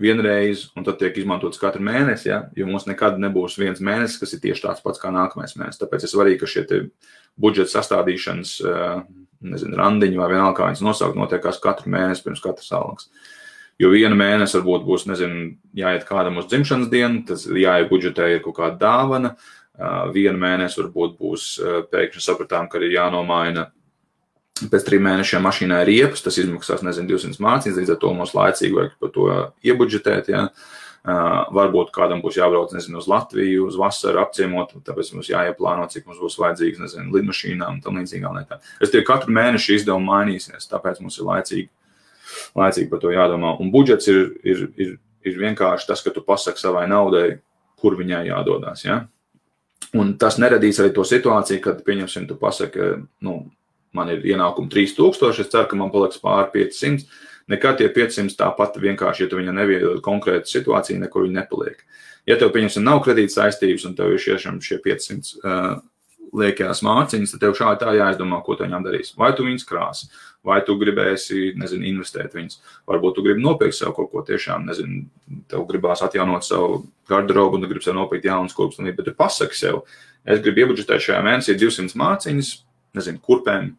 vienreiz un tad tiek izmantots katru mēnesi, ja? Jo mums nekad nebūs viens mēnesis, kas ir tieši tāds pats kā nākamais mēnesis. Tāpēc ir svarīgi, ka šie budžeta sastādīšanas, randiņi vai vienalga, kā viņas nosaukt, notiekās katru mēnesi pirms katras algas. Jo vienu mēnesi varbūt būs, jāiet kādam uz dzimšanas dienu, tas jāiet budžetē ir kaut kāda dāvana. Vienu mēnesi varbūt būs pēkšņi sapratām, ka ir jānomaina pēc 3 mēnešiem mašīnā riepas, tas izmaksās, 200 mārciņas, līdz ar to mums laicīgi vajag par to iebudžetēt, ja. Varbūt kādam būs jābrauc, uz Latviju, uz vasaru apciemot, tāpēc mums jāieplāno, cik mums būs vajadzīgs, lidmašīnām un tam līdzīgām lietām. Es tikai katru mēnešu izdevumu mainīsies, tāpēc mums ir laicīgi par to jādomā. Un budžets ir vienkārši tas, ka tu pasaki savai naudai, kur viņai jādodās, ja. Un tas neradīs arī to situāciju, kad, pieņemsim, tu pasaki, man ir ienākumi 3000, es ceru, ka man paliks pāri 500. Nekad tie 500 tāpat vienkārši, ja tu viņam neviedod konkrētu situāciju, nekur viņi nepaliek. Ja tev, pieņemsim, nav kredīta saistības un tev ir šie 500 liekajās mārciņas, tad tev šādi tā jāizdomā, ko tu viņām darīs. Vai tu viņas krāsi, vai tu gribēsi, investēt viņas. Varbūt tu gribi nopirkt sev kaut ko tiešām, tev gribās atjaunot savu garderobu un tu gribi sev nopirkt jaunas kurpes, bet tu pasaki sev, es gribu iebudžetēt šajā mēnesī 200 mārciņas, kurpēm,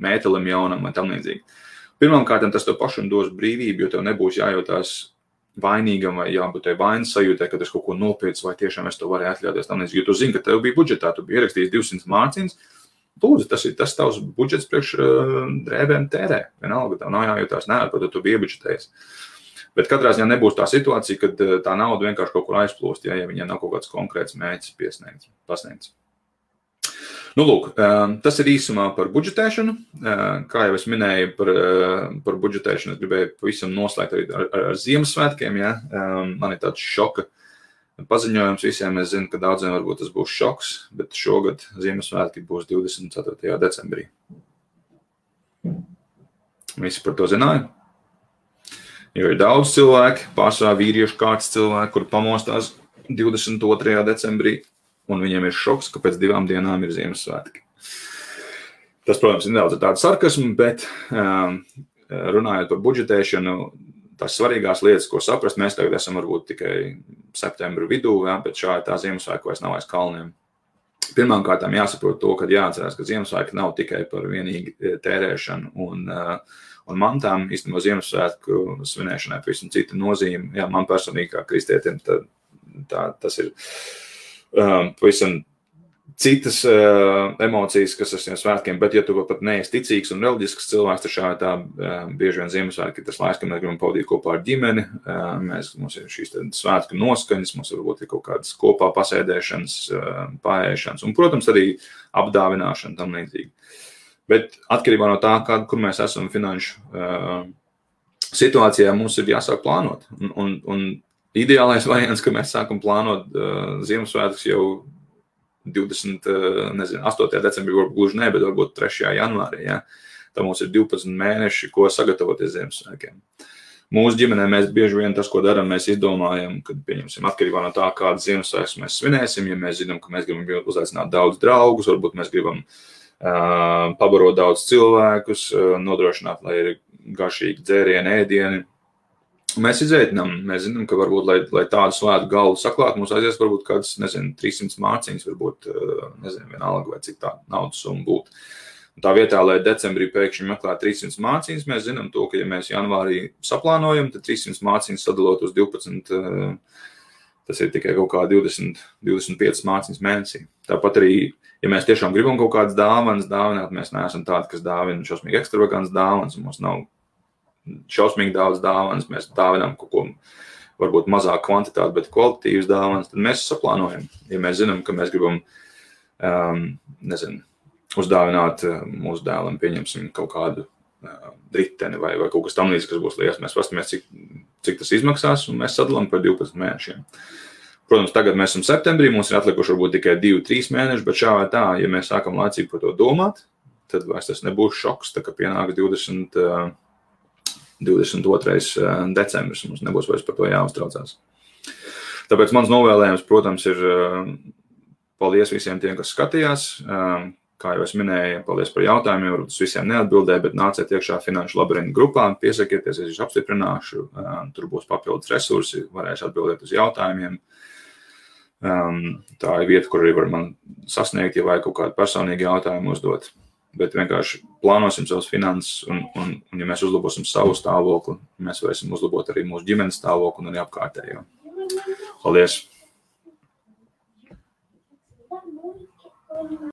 mētelim jaunam vai tam līdzīgi. Pirmkārt, tas tev pašam dos brīvību, jo tev nebūs jājūtās vainīgam vai jābūt tev vainas sajūtē, ka es kaut ko nopircu vai tiešām es to varēju atļauties tam līdzīgi, jo tu zini, ka tev bija budžetā, tu biji ierakstījis 200 mārciņas, lūdzu, tas ir tas tavs budžets priekš drēbēm tērē. Vienalga, tev nav jājūtās nevar, tu biji iebudžetējis. Bet katrā ziņā nebūs tā situācija, kad tā nauda vienkārši kaut kur aizplūst, ja viņai nav kaut kāds konkrēts mērķis pasniegts. Lūk, tas ir īsumā par budžetēšanu. Kā jau es minēju par budžetēšanu, es gribēju pavisam noslēgt arī ar Ziemassvētkiem. Ja? Man ir tāds šoka paziņojums visiem. Es zinu, ka daudziem varbūt tas būs šoks, bet šogad Ziemassvētki būs 24. decembrī. Visi par to zināja? Jo ir daudz cilvēki, pārsvarā vīriešu kārtas cilvēki, kur pamostās 22. decembrī. Un viņiem ir šoks, ka pēc 2 dienām ir Ziemassvētki. Tas, protams, ir nedaudz tāda sarkasma, bet runājot par budžetēšanu, tās svarīgās lietas, ko saprast, mēs tagad esam varbūt tikai septembra vidū, ja, bet šādi tā Ziemassvētku vairs nav aiz kalniem. Pirmkārt, jāsaprot to, ka jāatcerās, ka Ziemassvētki nav tikai par vienīgi tērēšanu un mantām. Īstenībā Ziemassvētku svinēšanai pavisam cita nozīme. Jā, man personīgi kā kristietim tas ir pavisam citas emocijas, kas ar šiem svētkiem, bet ja tu pat neesi ticīgs un reliģisks cilvēks, tad šādi tā bieži vien Ziemassvētki ir tas laiks, kad mēs gribam pavadīt kopā ar ģimeni, mums ir šīs svētku noskaņas, mums varbūt ir kaut kādas kopā pasēdēšanas, paēšanas un, protams, arī apdāvināšana tam līdzīgi. Bet atkarībā no tā, kur mēs esam finanšu situācijā, mums ir jāsāk plānot. Un ideālais variants, ka mēs sākam plānot Ziemassvētkus jau 8. decembrī, varbūt gluži ne, bet varbūt 3. janvārī. Ja? Tā mums ir 12 mēneši, ko sagatavoties Ziemassvētkiem. Mūsu ģimenē mēs bieži vien tas, ko darām, mēs izdomājam, kad pieņemsim atkarībā no tā, kādas Ziemassvētkus mēs svinēsim. Ja mēs zinām, ka mēs gribam uzaicināt daudz draugus, varbūt mēs gribam pabarot daudz cilvēkus, nodrošināt, lai ir garšīgi dzērieni, ēdieni. Mēs izveitinām, mēs zinām, ka varbūt, lai tādu svētu galdu saklāt, mums aizies varbūt kādas, 300 mārciņas, varbūt, vienalga, vai cik tā naudas summa būtu. Un tā vietā, lai decembrī pēkšņi meklētu 300 mārciņas, mēs zinām to, ka ja mēs janvārī saplānojam, tad 300 mārciņas sadalot uz 12, tas ir tikai kaut kā 25 mārciņas mēnesī. Tāpat arī, ja mēs tiešām gribam kaut kādas dāvanas dāvināt, mēs neesam tādi, kas dāvina šausmīgi ekstravagants dāvanas, un mums nav šausmīgi daudz dāvanas, mēs dāvinām kaut ko varbūt mazāk kvantitāti, bet kvalitatīvas dāvanas, tad mēs saplānojam. Ja mēs zinām, ka mēs gribam, uzdāvināt mūsu dēlam, pieņemsim kaut kādu riteni vai kaut kas tam līdz, kas būs liels, mēs pastamies, cik tas izmaksās, un mēs sadalām par 12 mēnešiem. Protams, tagad mēs esam septembrī, mums ir atlikuši varbūt tikai 2-3 mēneši, bet šā vai tā, ja mēs sākam laicīgi par to domāt, tad vairs tas nebūs šoks, tā kā pienāks 22. decembris, mums nebūs vairs par to jāuztraucās. Tāpēc mans novēlējums, protams, ir paldies visiem tiem, kas skatījās. kā jau es minēju, paldies par jautājumiem, varbūt es visiem neatbildēju, bet nāciet iekšā Finanšu labirintu grupā, piesakieties, es apstiprināšu, tur būs papildus resursi, varēšu atbildēt uz jautājumiem. Tā ir vieta, kur arī var man sasniegt, ja vajag kaut kādu personīgu jautājumu uzdot. Bet vienkārši plānosim savus finanses, un ja mēs uzlabosim savu stāvokli, mēs varēsim uzlabot arī mūsu ģimenes stāvokli un arī apkārtējo. Paldies!